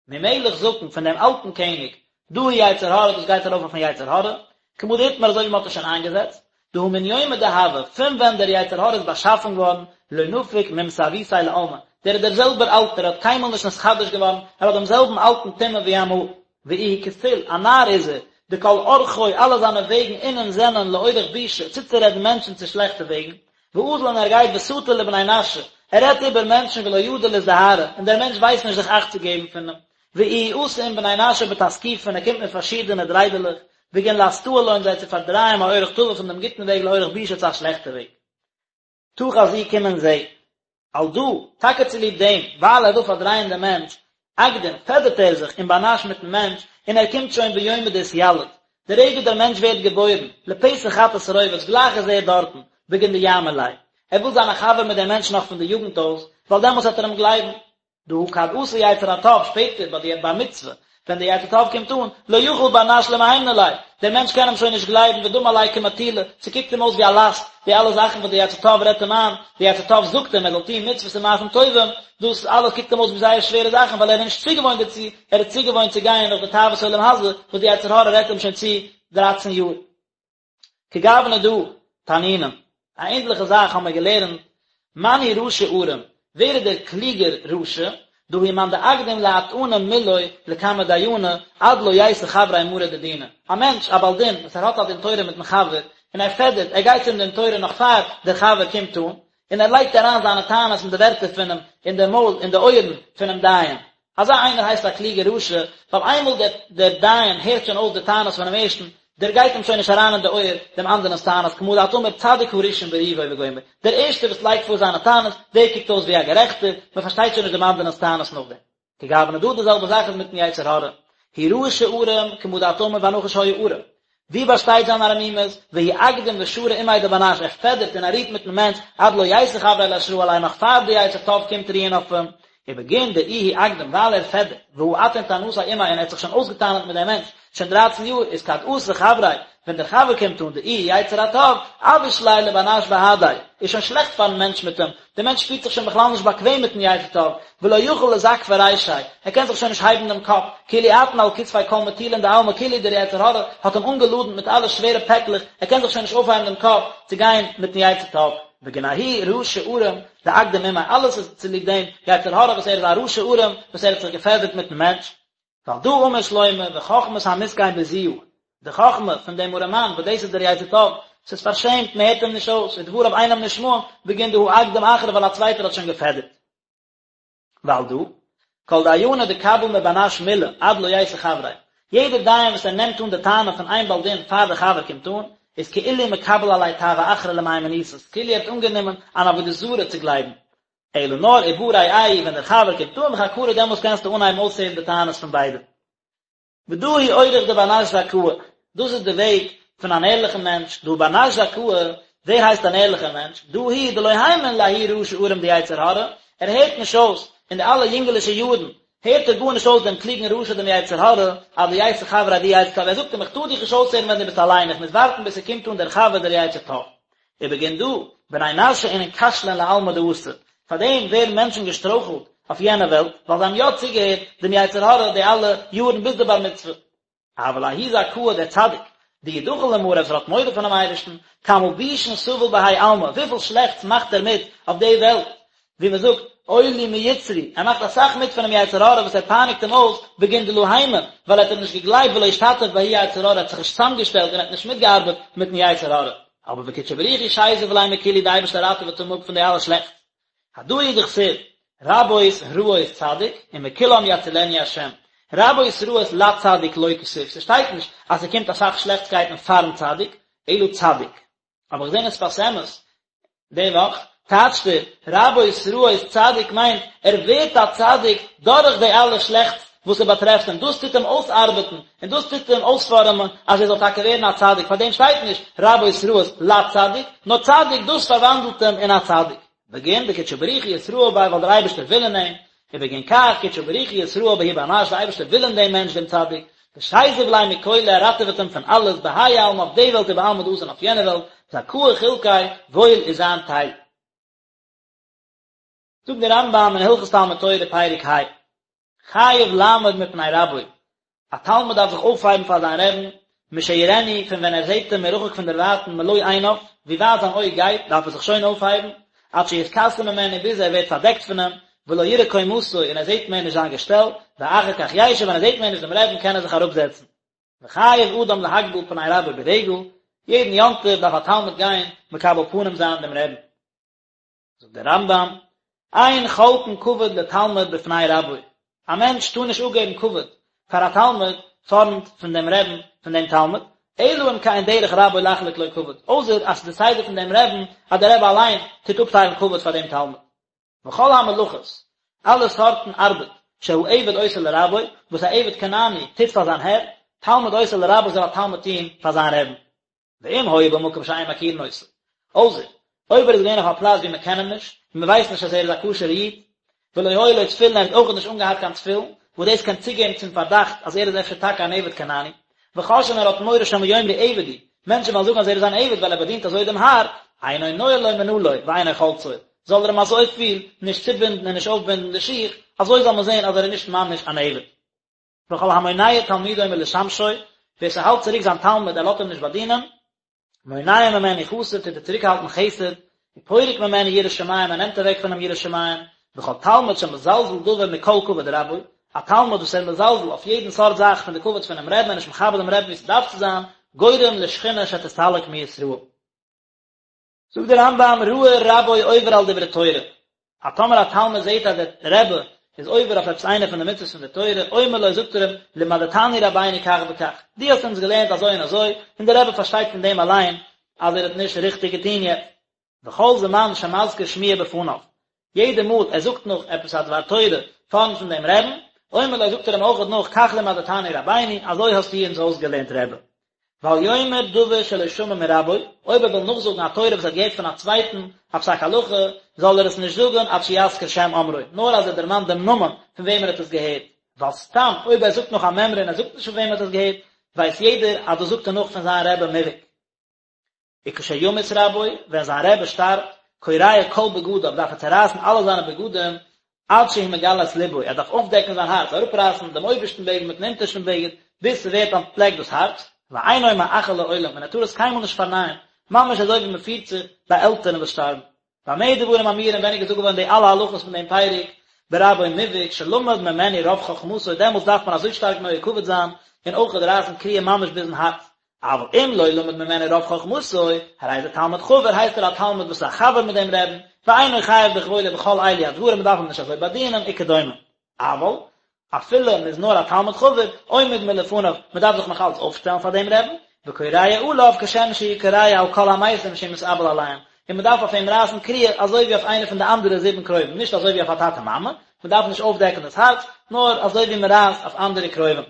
Speaker 1: ממלך זקן, פון דעם אלטן קעניג, דא הוא יצר הרע, דאס גייט ארויף אויפן יצר הרע, כמה דאתמר אזוי ווי מען האט עס שוין איינגעזעצט, דהא מן יומא דהוה, פון ווען דער יצר הרע איז באשאפן געווארן, לא נפיק ממסאבותיה לעלמא, דער איז דער זעלבער אלטער, ער האט קיינמאל נישט נתחדש געווארן, ער האט דעם זעלבן אלטן טומאה ווי אמאל. ואיהו כסיל, א נאר איז ער, דכל אורחוי, אלע זיינע וועגן אינון זענען לאורח בישא, צוצורעדן מענטשן צו שלעכטע וועגן, ואזיל און ער גייט וסטי לבני נשא, ער רעדט איבער מענטשן ולא ידע לאזדהרא, און דער מענטש ווייסט נישט זיך אכט צו געבן פון אים, ואיהו אתי עם בני נשא בתסקיפין, ער קומט מיט פארשידענע דריידעלעך, בגין לאסטאה לון זיי צו פארדרייען מאורח טבא פון דעם גוטן וועג לאורח בישא צו א שלעכטע וועג. תא חזי קום און זע. על דא, טאקע צוליב דעם, ווייל ער וויל פארדרייען דעם מענטש, אקדים, פעדערט ער זיך עם בר נש מיטן מענטש, און ער קומט שוין ביומא דאתיליד, די רגע דער מענטש ווערט געבוירן, לפתח חטאת רובץ, גלייך איז ער דארטן, בגין דיאמין ליה. ער וויל זיין א חבר מיט דעם מענטש נאך פון די יוגנט אויס, ווייל דעמאלטס וועט ער אים גלייבן. דהא כד אתי יצר הטוב, שפעטער ביי די בר מצוה, ווען דער יצר טוב קומט אן, לא יכיל בר נש למהימנא ליה, דער מענטש קען אים שוין נישט גלייבן ודמי עליה כמטולא, ס'קוקט אים אויס ווי א לאסט, די אלע זאכן וואס דער יצר טוב רעדט אים איין, דער יצר טוב זאגט אים ער זאל טון מצוות און מעשים טובים, דאס אלעס קוקט אים אויס ווי זייער שווערע זאכן ווייל ער איז נישט צוגעוואוינט דערצו, ער איז צוגעוואוינט צו גיין נאך די תאוות עולם הזה וואס דער יצר הרע רעדט אים שוין צו דרייצן יאר. כגוונא דא תנינן, א ענדליכע זאך האבן מיר געלערנט, מאן הוא רשע ערום, ווער איז דער קלוגער רשע, דא הוא מאן דאקדים לאטענא מילוי לקמי דיינא, עד לא ייתי חבריה מרא דדינא, א מענטש, א בעל דין, וואס ער האט א דין תורה מיטן חבר, און ער פעדערט, ער גייט צום דין תורה נאך פאר דער חבר קומט אן, און ער לייגט אריין זיינע טענות און די ווערטער פונעם אין די מויל אין די אויערן פונעם דיין. אזא איינער הייסט א קלוגער רשע, ווייל איינמאל דער דער דיין הערט שוין אויס די טענות פונעם ערשטן, דער גייט אים שוין נישט אריין אין די אויער דעם אנדערנ'ס טענות, כמה דאת אמר צדיק הראשון בריבו וגומר, דער ערשטער וואס לייגט פאר זיינע טענות, דער קוקט אויס ווי א גערעכטער, מען פארשטייט שוין נישט דעם אנדערנ'ס טענות נאכדעם. כגוונא דא די זעלבע זאך איז מיטן יצר הרע, הוא רשע ערום, כמה דאת אמר והנחש היה ערום. ווי באשטייט זיין ערמימות, והוא אקדים ושרי עמיה דבר נש, ער פעדערט און ער רוהט מיטן מענטש, עד לא ייתי חבריה לאשרא עליה נאך פאר די יצר טוב קומט רוען אויף אים, ובגין דאיהו אקדים ווייל ער פעדערט, והא אטעין טענתיה עמיה און ער האט זיך שוין אויסגעטענה'ט מיט דעם מענטש שוין דרייצן יאר, איז כד אתא חבריה, ווען דער חבר קומט אן דאיהו יצר הטוב, אביש ליה לבר נש בהדיה, איז שוין שלעכט פארן מענטש מיט אים, דער מענטש שפירט זיך שוין בכלל נישט באקוועם מיטן יצר טוב, ולא יכיל לזקפא רישיה, ער קען זיך שוין נישט הייבן דעם קאפ, כאילו אטעין על כתפיה כל מטולין דעלמא כאילו דער יצר הרע האט אים אנגעלאדנט מיט אלע שווערע פעקלעך, ער קען זיך שוין נישט אויפהייבן דעם קאפ צו גיין מיטן יצר טוב. בגין ההוא רשע ערום דאקדים עמיה, אלעס איז צוליב דעם יצר הרע וואס ער איז א רשע ערום וואס ער האט זיך געפעדערט מיטן מענטש, ועל דא אמר שלמה וחכמת המסכן בזויה, די חכמה פון דעם ארעמאן וואס דאס איז דער יצר טוב, ס'איז פארשעמט, מען הערט אים נישט אויס, ודבריו אינם נשמעים, בגין דהא אקדים אחרא ווייל א צווייטער האט שוין געפעדערט. ועל דא, כל דיינא דקביל מבר נש מלה עד לא ייתי חבריה, יעדער דיין וואס ער נעמט אן די טענה פון איין בעל דין פאר די חבר קומט אן, איז כאילו מקבל עליה טעוה אחרא למהימנותא, כאילו ער האט אנגענומען אן עבודה זרה צו גלייבן, אלא נאר ובא רעהו ווען דער חבר קומט אן וחקרו דעמאלס קענסטו אנהייבן אויסהערן די טענות פון ביידע. ודא הוא אורח דבר נש זכאה, דאס איז די וועג פון אן ערליכן מענטש, דהא בר נש זכאה, ווער הייסט אן ערליכער מענטש? דא הוא דלא הימין לההוא רשע ערום דיצר הרע, ער הערט נישט אויס, אין די אלע יונגעלישע יארן, הערט ער גארנישט אויס דעם קלוגן רשע דעם יצר הרע, עד דייתי חבריה דיצר טוב, ער זאגט אים איך טאר דיך נישט אויסהערן ווען דו ביסט אליין, איך מוז ווארטן ביז ס'קומט אן דער חבר דער יצר טוב. ובגין דא, בני נשא אינון כשלין לעלמא דאתי, פאר דעם ווערן מענטשן געשטרויכלט אויף יענע וועלט, ווייל זיי האבן יא צוגעהערט דעם יצר הרע די אלע יארן ביז די בר מצוה. אבל ההוא זכאה דער צדיק, דאיהו דחיל למאריה וואס ער האט מורא פונעם אייבערשטן, כמה בישין סביל בהאי עלמא, וויפיל שלעכטס מאכט ער מיט אויף די וועלט, ווי מען זאגט, אוי לי מיצרי, ער מאכט אסאך מיט פונעם יצר הרע וואס ער פייניגט אים אויס, בגין דלא הימין, ווייל ער האט אים נישט געגלייבט ולא אשתתף בההוא יצר הרע, ער האט זיך נישט צוזאמגעשטעלט און ער האט נישט מיטגעארבעט מיטן יצר הרע. אבער וקודשא בריך הוא שזיב ליה מכולהו, די אייבערשטער ראטעוועט אים אפ פון די אלע שלעכטס. הדא הוא דכתיב, רבות רעות צדיק, ומכולם יצילנו השם. רבות רעות לצדיק לא כתיב, ס'שטייט נישט אז ס'קומט אסאך שלעכטסקייטן פארן צדיק, אלא צדיק. האב איך געזען אין שפת אמת די וואך, טייטשט ער, רבות רעות צדיק מיינט ער ווערט א צדיק דורך די אלע שלעכטס וואס ס'באטרעפט אים, דאס טוט אים אויסארבעטן און דאס טוט אים אויספארעמען אז ער זאל טאקע ווערן א צדיק, פארדעם שטייט נישט רבות רעות לצדיק, נאר צדיק דאס פארוואנדלט אים אין א צדיק. בגין דקודשא בריך הוא אתרעי ביה ווייל דער אייבערשטער וויל אין אים, ובגין כך קודשא בריך הוא אתרעי בההוא בר נש, דער אייבערשטער וויל אין דעם מענטש דעם צדיק, ושזיב ליה מכולא ער ראטעוועט אים פון אלעס, בהאי עלמא אויף די וועלט ובעלמא דאתי און אויף יענע וועלט, זכאה חולקיה, וואויל איז זיין טייל. זאגט דער רמב"ם אין הלכות תלמוד תורה פרק ה, חייב לעמוד מפני רבו, א תלמיד דארף זיך אויפהייבן פאר זיין רעבן, משיראנו, פון ווען ער זעט אים מרחוק פון דערווייטן מלא עיניו, ווי ווייט זיין אויג גייט, דארף ער זיך שוין אויפהייבן, עד שיתכסה ממנו, ביז ער ווערט פארדעקט פון אים, ולא יראה קומתו, און ער זעט מער נישט זיין געשטעל, ואחר כך ישב, ווען ער זעט מער נישט דעם רעבן קען ער זיך אראפזעצן. וחייב אדם להקביל פני רבו ברגל, יעדן יום טוב דארף א תלמיד גיין מקבל פנים זיין דעם רעבן. זאגט דער רמב"ם, אין חולקין כבוד לתלמיד בפני רבו, א מענטש טאר נישט אפגעבן כבוד פאר א תלמיד פארנט פון דעם רעבן פון דעם תלמיד, אלא אם כן דרך רבו לחלוק לו כבוד, אויסער אז ס'איז די סדר פון דעם רעבן אז דער רבי אליין טוט אפטיילן כבוד פאר דעם תלמיד. וכל המלאכות, אלע סארטן ארבעט, שהעבד עושה לרבו, וואס א עבד כנעני טוט פאר זיין הער, תלמיד עושה לרבו זאל א תלמיד טון פאר זיין רעבן. ואם היה במקום שאין מכירין אותו. אויסער, אויב ער איז געווען אויף א פלאץ ווי מען קען אים נישט, און מען ווייסט נישט אז ער איז א כשר'ער איד, ולא היו לו תפילין ער האט אויך נישט אנגעהאט קיין תפילין, וואס דאס קען צוגעבן צום פארדאכט אז ער איז אפשר טאקע אן עבד כנעני, וחוששין ער האט מורא שמא יאמרו עבד הוא, מענטשן וועלן זאגן אז ער איז אן עבד ווייל ער באדינט אזוי דעם האר, אינו נועל לו מנעלו ואינו חולצו, זאל ער אים אזויפיל נישט צובינדן און נישט אויפבינדן די שיך, אזוי זאל מען זען אז ער איז נישט ממש אן עבד. וכל המונע תלמידו מלשמשו, ווער ס'האלט צוריק זיין תלמיד ער לאזט אים נישט באדינען, מונע ממנו חסד טוט ער צוריקהאלטן חסד, ופורק ממנו יראת שמים ער נעמט אוועק פון אים יראת שמים, וכל תלמיד שמזלזל דבר מכל כבוד רבו, א תלמיד וואס ער מזלזל אויף יעדן סארט זאך פון די כבוד פונעם רעבן און נישט מכבד דעם רעבן ווי ס'דארף צו זיין, גורם לשכינה שתסתלק מישראל. זאגט דער רמב"ם ראה רבו עובר על דברי תורה, אז טאמער א תלמיד זעט אז דער רבי איז עובר אויף עפעס איינע פון די מצוות פון די תורה, אומר לו זאגט ער אים, למדתנו רבינו כך וכך, דו האסט אונז געלערנט אזוי און אזוי, און דער רבי פארשטייט פון דעם אליין אז ער האט נישט ריכטיג געטון יעצט. וכל זמן שמזכיר שמועה בפניו, יעדע מאל ער זאגט נאך עפעס א דבר תורה פארנט פון דעם רעבן, אומר לו זאגט ער אים אויכעט נאך כך למדתנו רבינו, אזוי האסטו אונז אויסגעלערנט רבי. ואל יאמר דבר שלא שמע מרבו, אויב ער וויל נאכזאגן א תורה וואס ער האט געהערט פון א צווייטן, א פסק הלכה, זאל ער עס נישט זאגן עד שיזכיר שם אומרו, נאר אז ער דערמאנט דעם נאמען פון וועם ער האט עס געהערט, ווייל סתם אויב ער זאגט נאך א מימרא און ער זאגט נישט פון וועם ער האט עס געהערט, ווייסט יעדער אז דאס זאגט ער נאך פון זיין רבי מובהק. וכשימות רבו, ווען זיין רבי שטארבט, קורע כל בגדיו, דארף ער צערייסן אלע זיינע בגדים, עד שהוא מגלה את לבו, ער דארף אויפדעקן זיין הארץ, אראפרייסן דעם אויבערשטן בגד מיטן אונטערשטן בגד, ביז ס'ווערט אנטפלעקט דאס הארץ, ואינו מאחה לעולם, און ער טאר עס קיינמאל נישט פארנייען, ממש אזוי ווי מ'פירט זיך ביי עלטערן וואס שטארבן. במה דברים אמורים ווען איז געזאגט געווארן די אלע הלכות פון דעם פרק, ברבו מובהק שלמד ממנו רוב חכמתו, דעמאלטס דארף מען אזוי שטארק נוהג כבוד זיין, און אויך רייסן קריעה ממש ביזן הארץ. אבל אם לא למד ממנו רוב חכמתו, הרי זה תלמיד חבר, הייסט ער א תלמיד וואס איז א חבר מיט דעם רעבן, ואינו חייב בכבודו בכל אלו הדברים, מען דארף אים נישט אזוי באדינען, וכדומה. אבל, אפילו מען איז נאר א תלמיד חבר, עומד מלפניו, מען דארף זיך נאך אלץ אויפשטעלן פאר דעם רעבן, וקורע עליו כשם שהוא קורע על כל המתים שהוא מתאבל עליהם, און מען דארף אויף אים רייסן קריעה אזוי ווי אויף איינע פון די אנדערע זיבן קרובים, נישט אזוי ווי אויף א טאטע מאמע, מען דארף נישט אויפדעקן דאס הארץ, נאר אזוי ווי מען רייסט אויף אנדערע קרובים.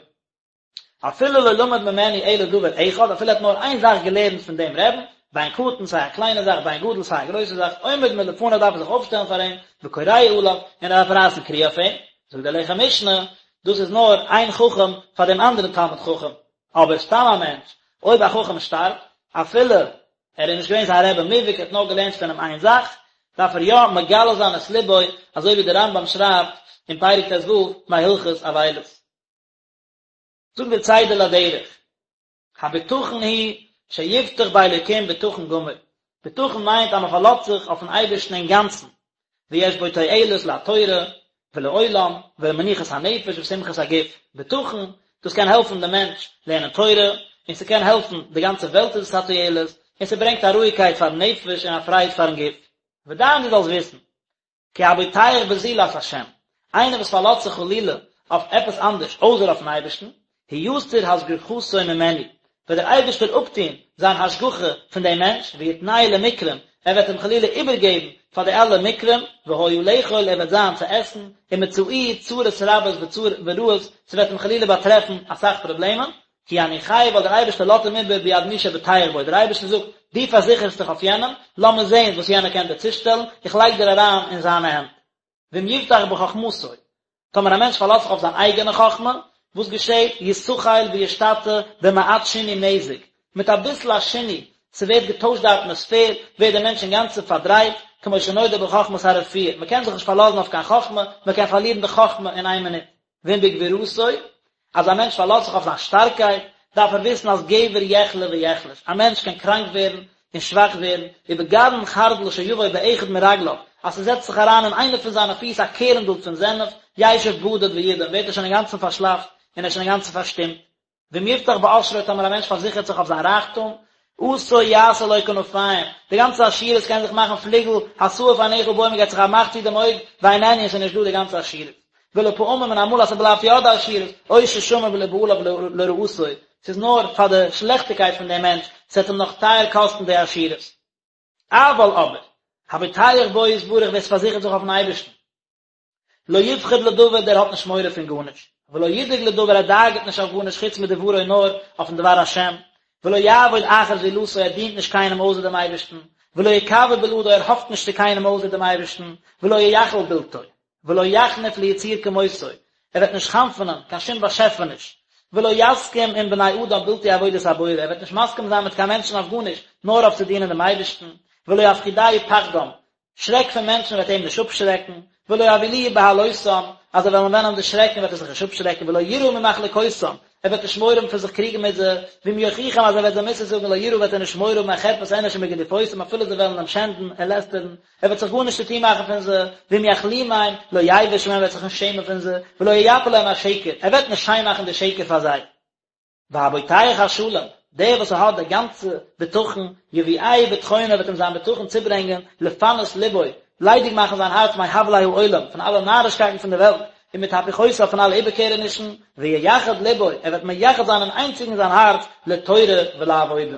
Speaker 1: אפילו לא למד ממנו אלא דבר אחד, אפילו ער האט נאר איין זאך געלערנט פון דעם רעבן, בין קטן סיי א קליינע זאך בין גדול סיי א גרויסע זאך, עומד מלפניו דארף ער זיך אויפשטעלן פאר אים, וקורע עליו, און ער דארף רייסן קריעה אויף אים. זאגט דער לחם משנה, דאס איז נאר איין חכם פאר דעם אנדערן תלמיד חכם, אבער סתם א מענטש, אויב א חכם שטארבט, אפילו ער איז נישט געווען זיין רבי מובהק, ער האט נאר געלערנט פון אים איין זאך, דארף ער יא מגלה זיין את לבו, אזוי ווי דער רמב"ם שרייבט אין פרק ט"ו מהלכות אבילות. זאגט דער צידה לדרך, הבטחון הוא שיבטח באלוקים בטחון גמור, בטחון מיינט אז מען פארלאזט זיך אויפן אייבערשטן אינגאנצן, ויש בו תועלת לתורה ולעולם ולמנוחת הנפש ושמחת הגוף, בטחון, דאס קען העלפן דעם מענטש לערנען תורה, און ס'קען העלפן די גאנצע וועלט איז עס א תועלת, און ס'ברענגט א רואיגקייט פארן נפש און א פרייד פארן גוף. ודע דו זאלסט וויסן, כי הבוטח בזולת השם, איינער וואס פארלאזט זיך חלילה אויף עפעס אנדערש אויסער אויפן אייבערשטן, הוא יסיר השגחתו ממנו, וועט דער אייבערשטער אפטון זיין השגחה פון דעם מענטש, ויתנהו למקרים, ער וועט אים חלילה איבערגעבן פאר די אלע מקרים, והיה לאכול, ער וועט זיין צו עסן, ומצאוהו צרות רבות ורעות, ס'וועט אים חלילה באטרעפן אסאך פראבלעמען, כי יניחהו ווייל דער אייבערשטער לאזט אים איבער ביד מי שבוטח בו, דער אייבערשטער זאגט, דו פארזיכערסט דיך אויף יענעם, לאמיר זען וואס יענער קען דיר צושטעלן, איך לייג דיר אריין אין זיינע הענט. ואם יבטח בחכמתו, טאמער א מענטש פארלאזט זיך אויף זיין אייגענע חכמה, וואס געשעט? יתחל וישתטה במעט שינוי מזג, מיט אביסל א שינוי, ס'ווערט געטוישט די אטמאספער, ווערט דער מענטש אינגאנצן פארדרייט, כמו שנודע בחכמת הרפואה, מ'קען זיך נישט פארלאזן אויף קיין חכמה, מ'קען פארלירן די חכמה אין איין מינוט. ואם בגבורתו, אז א מענטש פארלאזט זיך אויף זיין שטארקייט, דארף ער וויסן אז גבר יחלה ויחלש, א מענטש קען קראנק ווערן און שוואך ווערן, ובגרעין חרדל שיבוא באחד מרגליו, אז ס'זעצט זיך אריין אין איינע פון זיינע פיס א קערנדל פון זענעף, ישב בדד וידום, ווערט ער שוין אינגאנצן פארשלאפט און ער איז שוין אינגאנצן פארשטומט. ואם יבטח בעשרו טאמער א מענטש פארזיכערט זיך אויף זיין רייכטום, עשו יעשה לו כנפיים, די גאנצע עשירות קען זיך מאכן פליגל, התעיף עיניך בו מען געט זיך א מאך צו דעם אויג, ואיננו און ס'איז נישט דא די גאנצע עשירות. ולפעמים און אמאל אז ס'בלייבט יא די עשירות, עושר שמור לבעליו לרעתו, ס'איז נאר פאר די שלעכטיגקייט פון דעם מענטש, ס'וועט אים נאך טייער קאסטן די עשירות. אבל אבער, הבוטח בו יתברך ווער ס'פארזיכערט זיך אויפן אייבערשטן, לא יפחד לדבר דער האט נישט מורא פון גארנישט, ולא ידאג לדבר ער דאגה'ט נישט אויף גארנישט חוץ מדברו נאר אויפן דבר השם, ולא יעבוד אחר זולתו ער דינט נישט קיינעם אויסער דעם אייבערשטן, ולא יקוה בלעדו ער האפט נישט צו קיינעם אויסער דעם אייבערשטן, ולא ייחל בלתו, ולא יחניף ליצור כמותו ער וועט נישט חנפ'נען קיין שום באשעפעניש, ולא יסכים עם בני אדם בלתי עבודת הבורא ער וועט נישט מסכים זיין מיט קיין מענטשן אויף גארנישט נאר אויף צו דינען דעם אייבערשטן, ולא יפחידהו פחדם שרעק פון מענטשן וועט אים נישט אפשרעקן, ולא יבהילוהו בהלותם, אז זיי וועלן וועלן אים דערשרעקן וועט ער זיך נישט אפשרעקן, ולא יירא ממחלוקותם, ער וועט נישט מורא האבן פון זיך קריגן מיט זיי, ואם יוכיחם אז ער וועט זיי מוסר זאגן לא יירא וועט ער נישט מורא האבן מחרפת אנוש ומגדיפותם אפילו זיי וועלן אים שענדן און לעסטערן, ער וועט זיך גארנישט צו טון מאכן פון זיי, ואם יכלימם, לא יבוש מהם ער וועט זיך נישט שעמען פון זיי, ולא ייפה להם השקר, ער וועט נישט שיין מאכן די שקר פאר זיי. והבוטח השלם, דער וואס האט די גאנצע בטחון, יביאהו בטחונו וועט אים זיין בטחון צוברענגען, לפנות לבו, ליידיג מאכן זיין הארץ מהבלי העולם, פון אלע נארישקייטן פון די וועלט, ומתהפוכותיו פון אלע איבערקערענישן, וייחד לבו, ער וועט מייחד זיין און איינציגן זיין הארץ לתורה ולעבודה.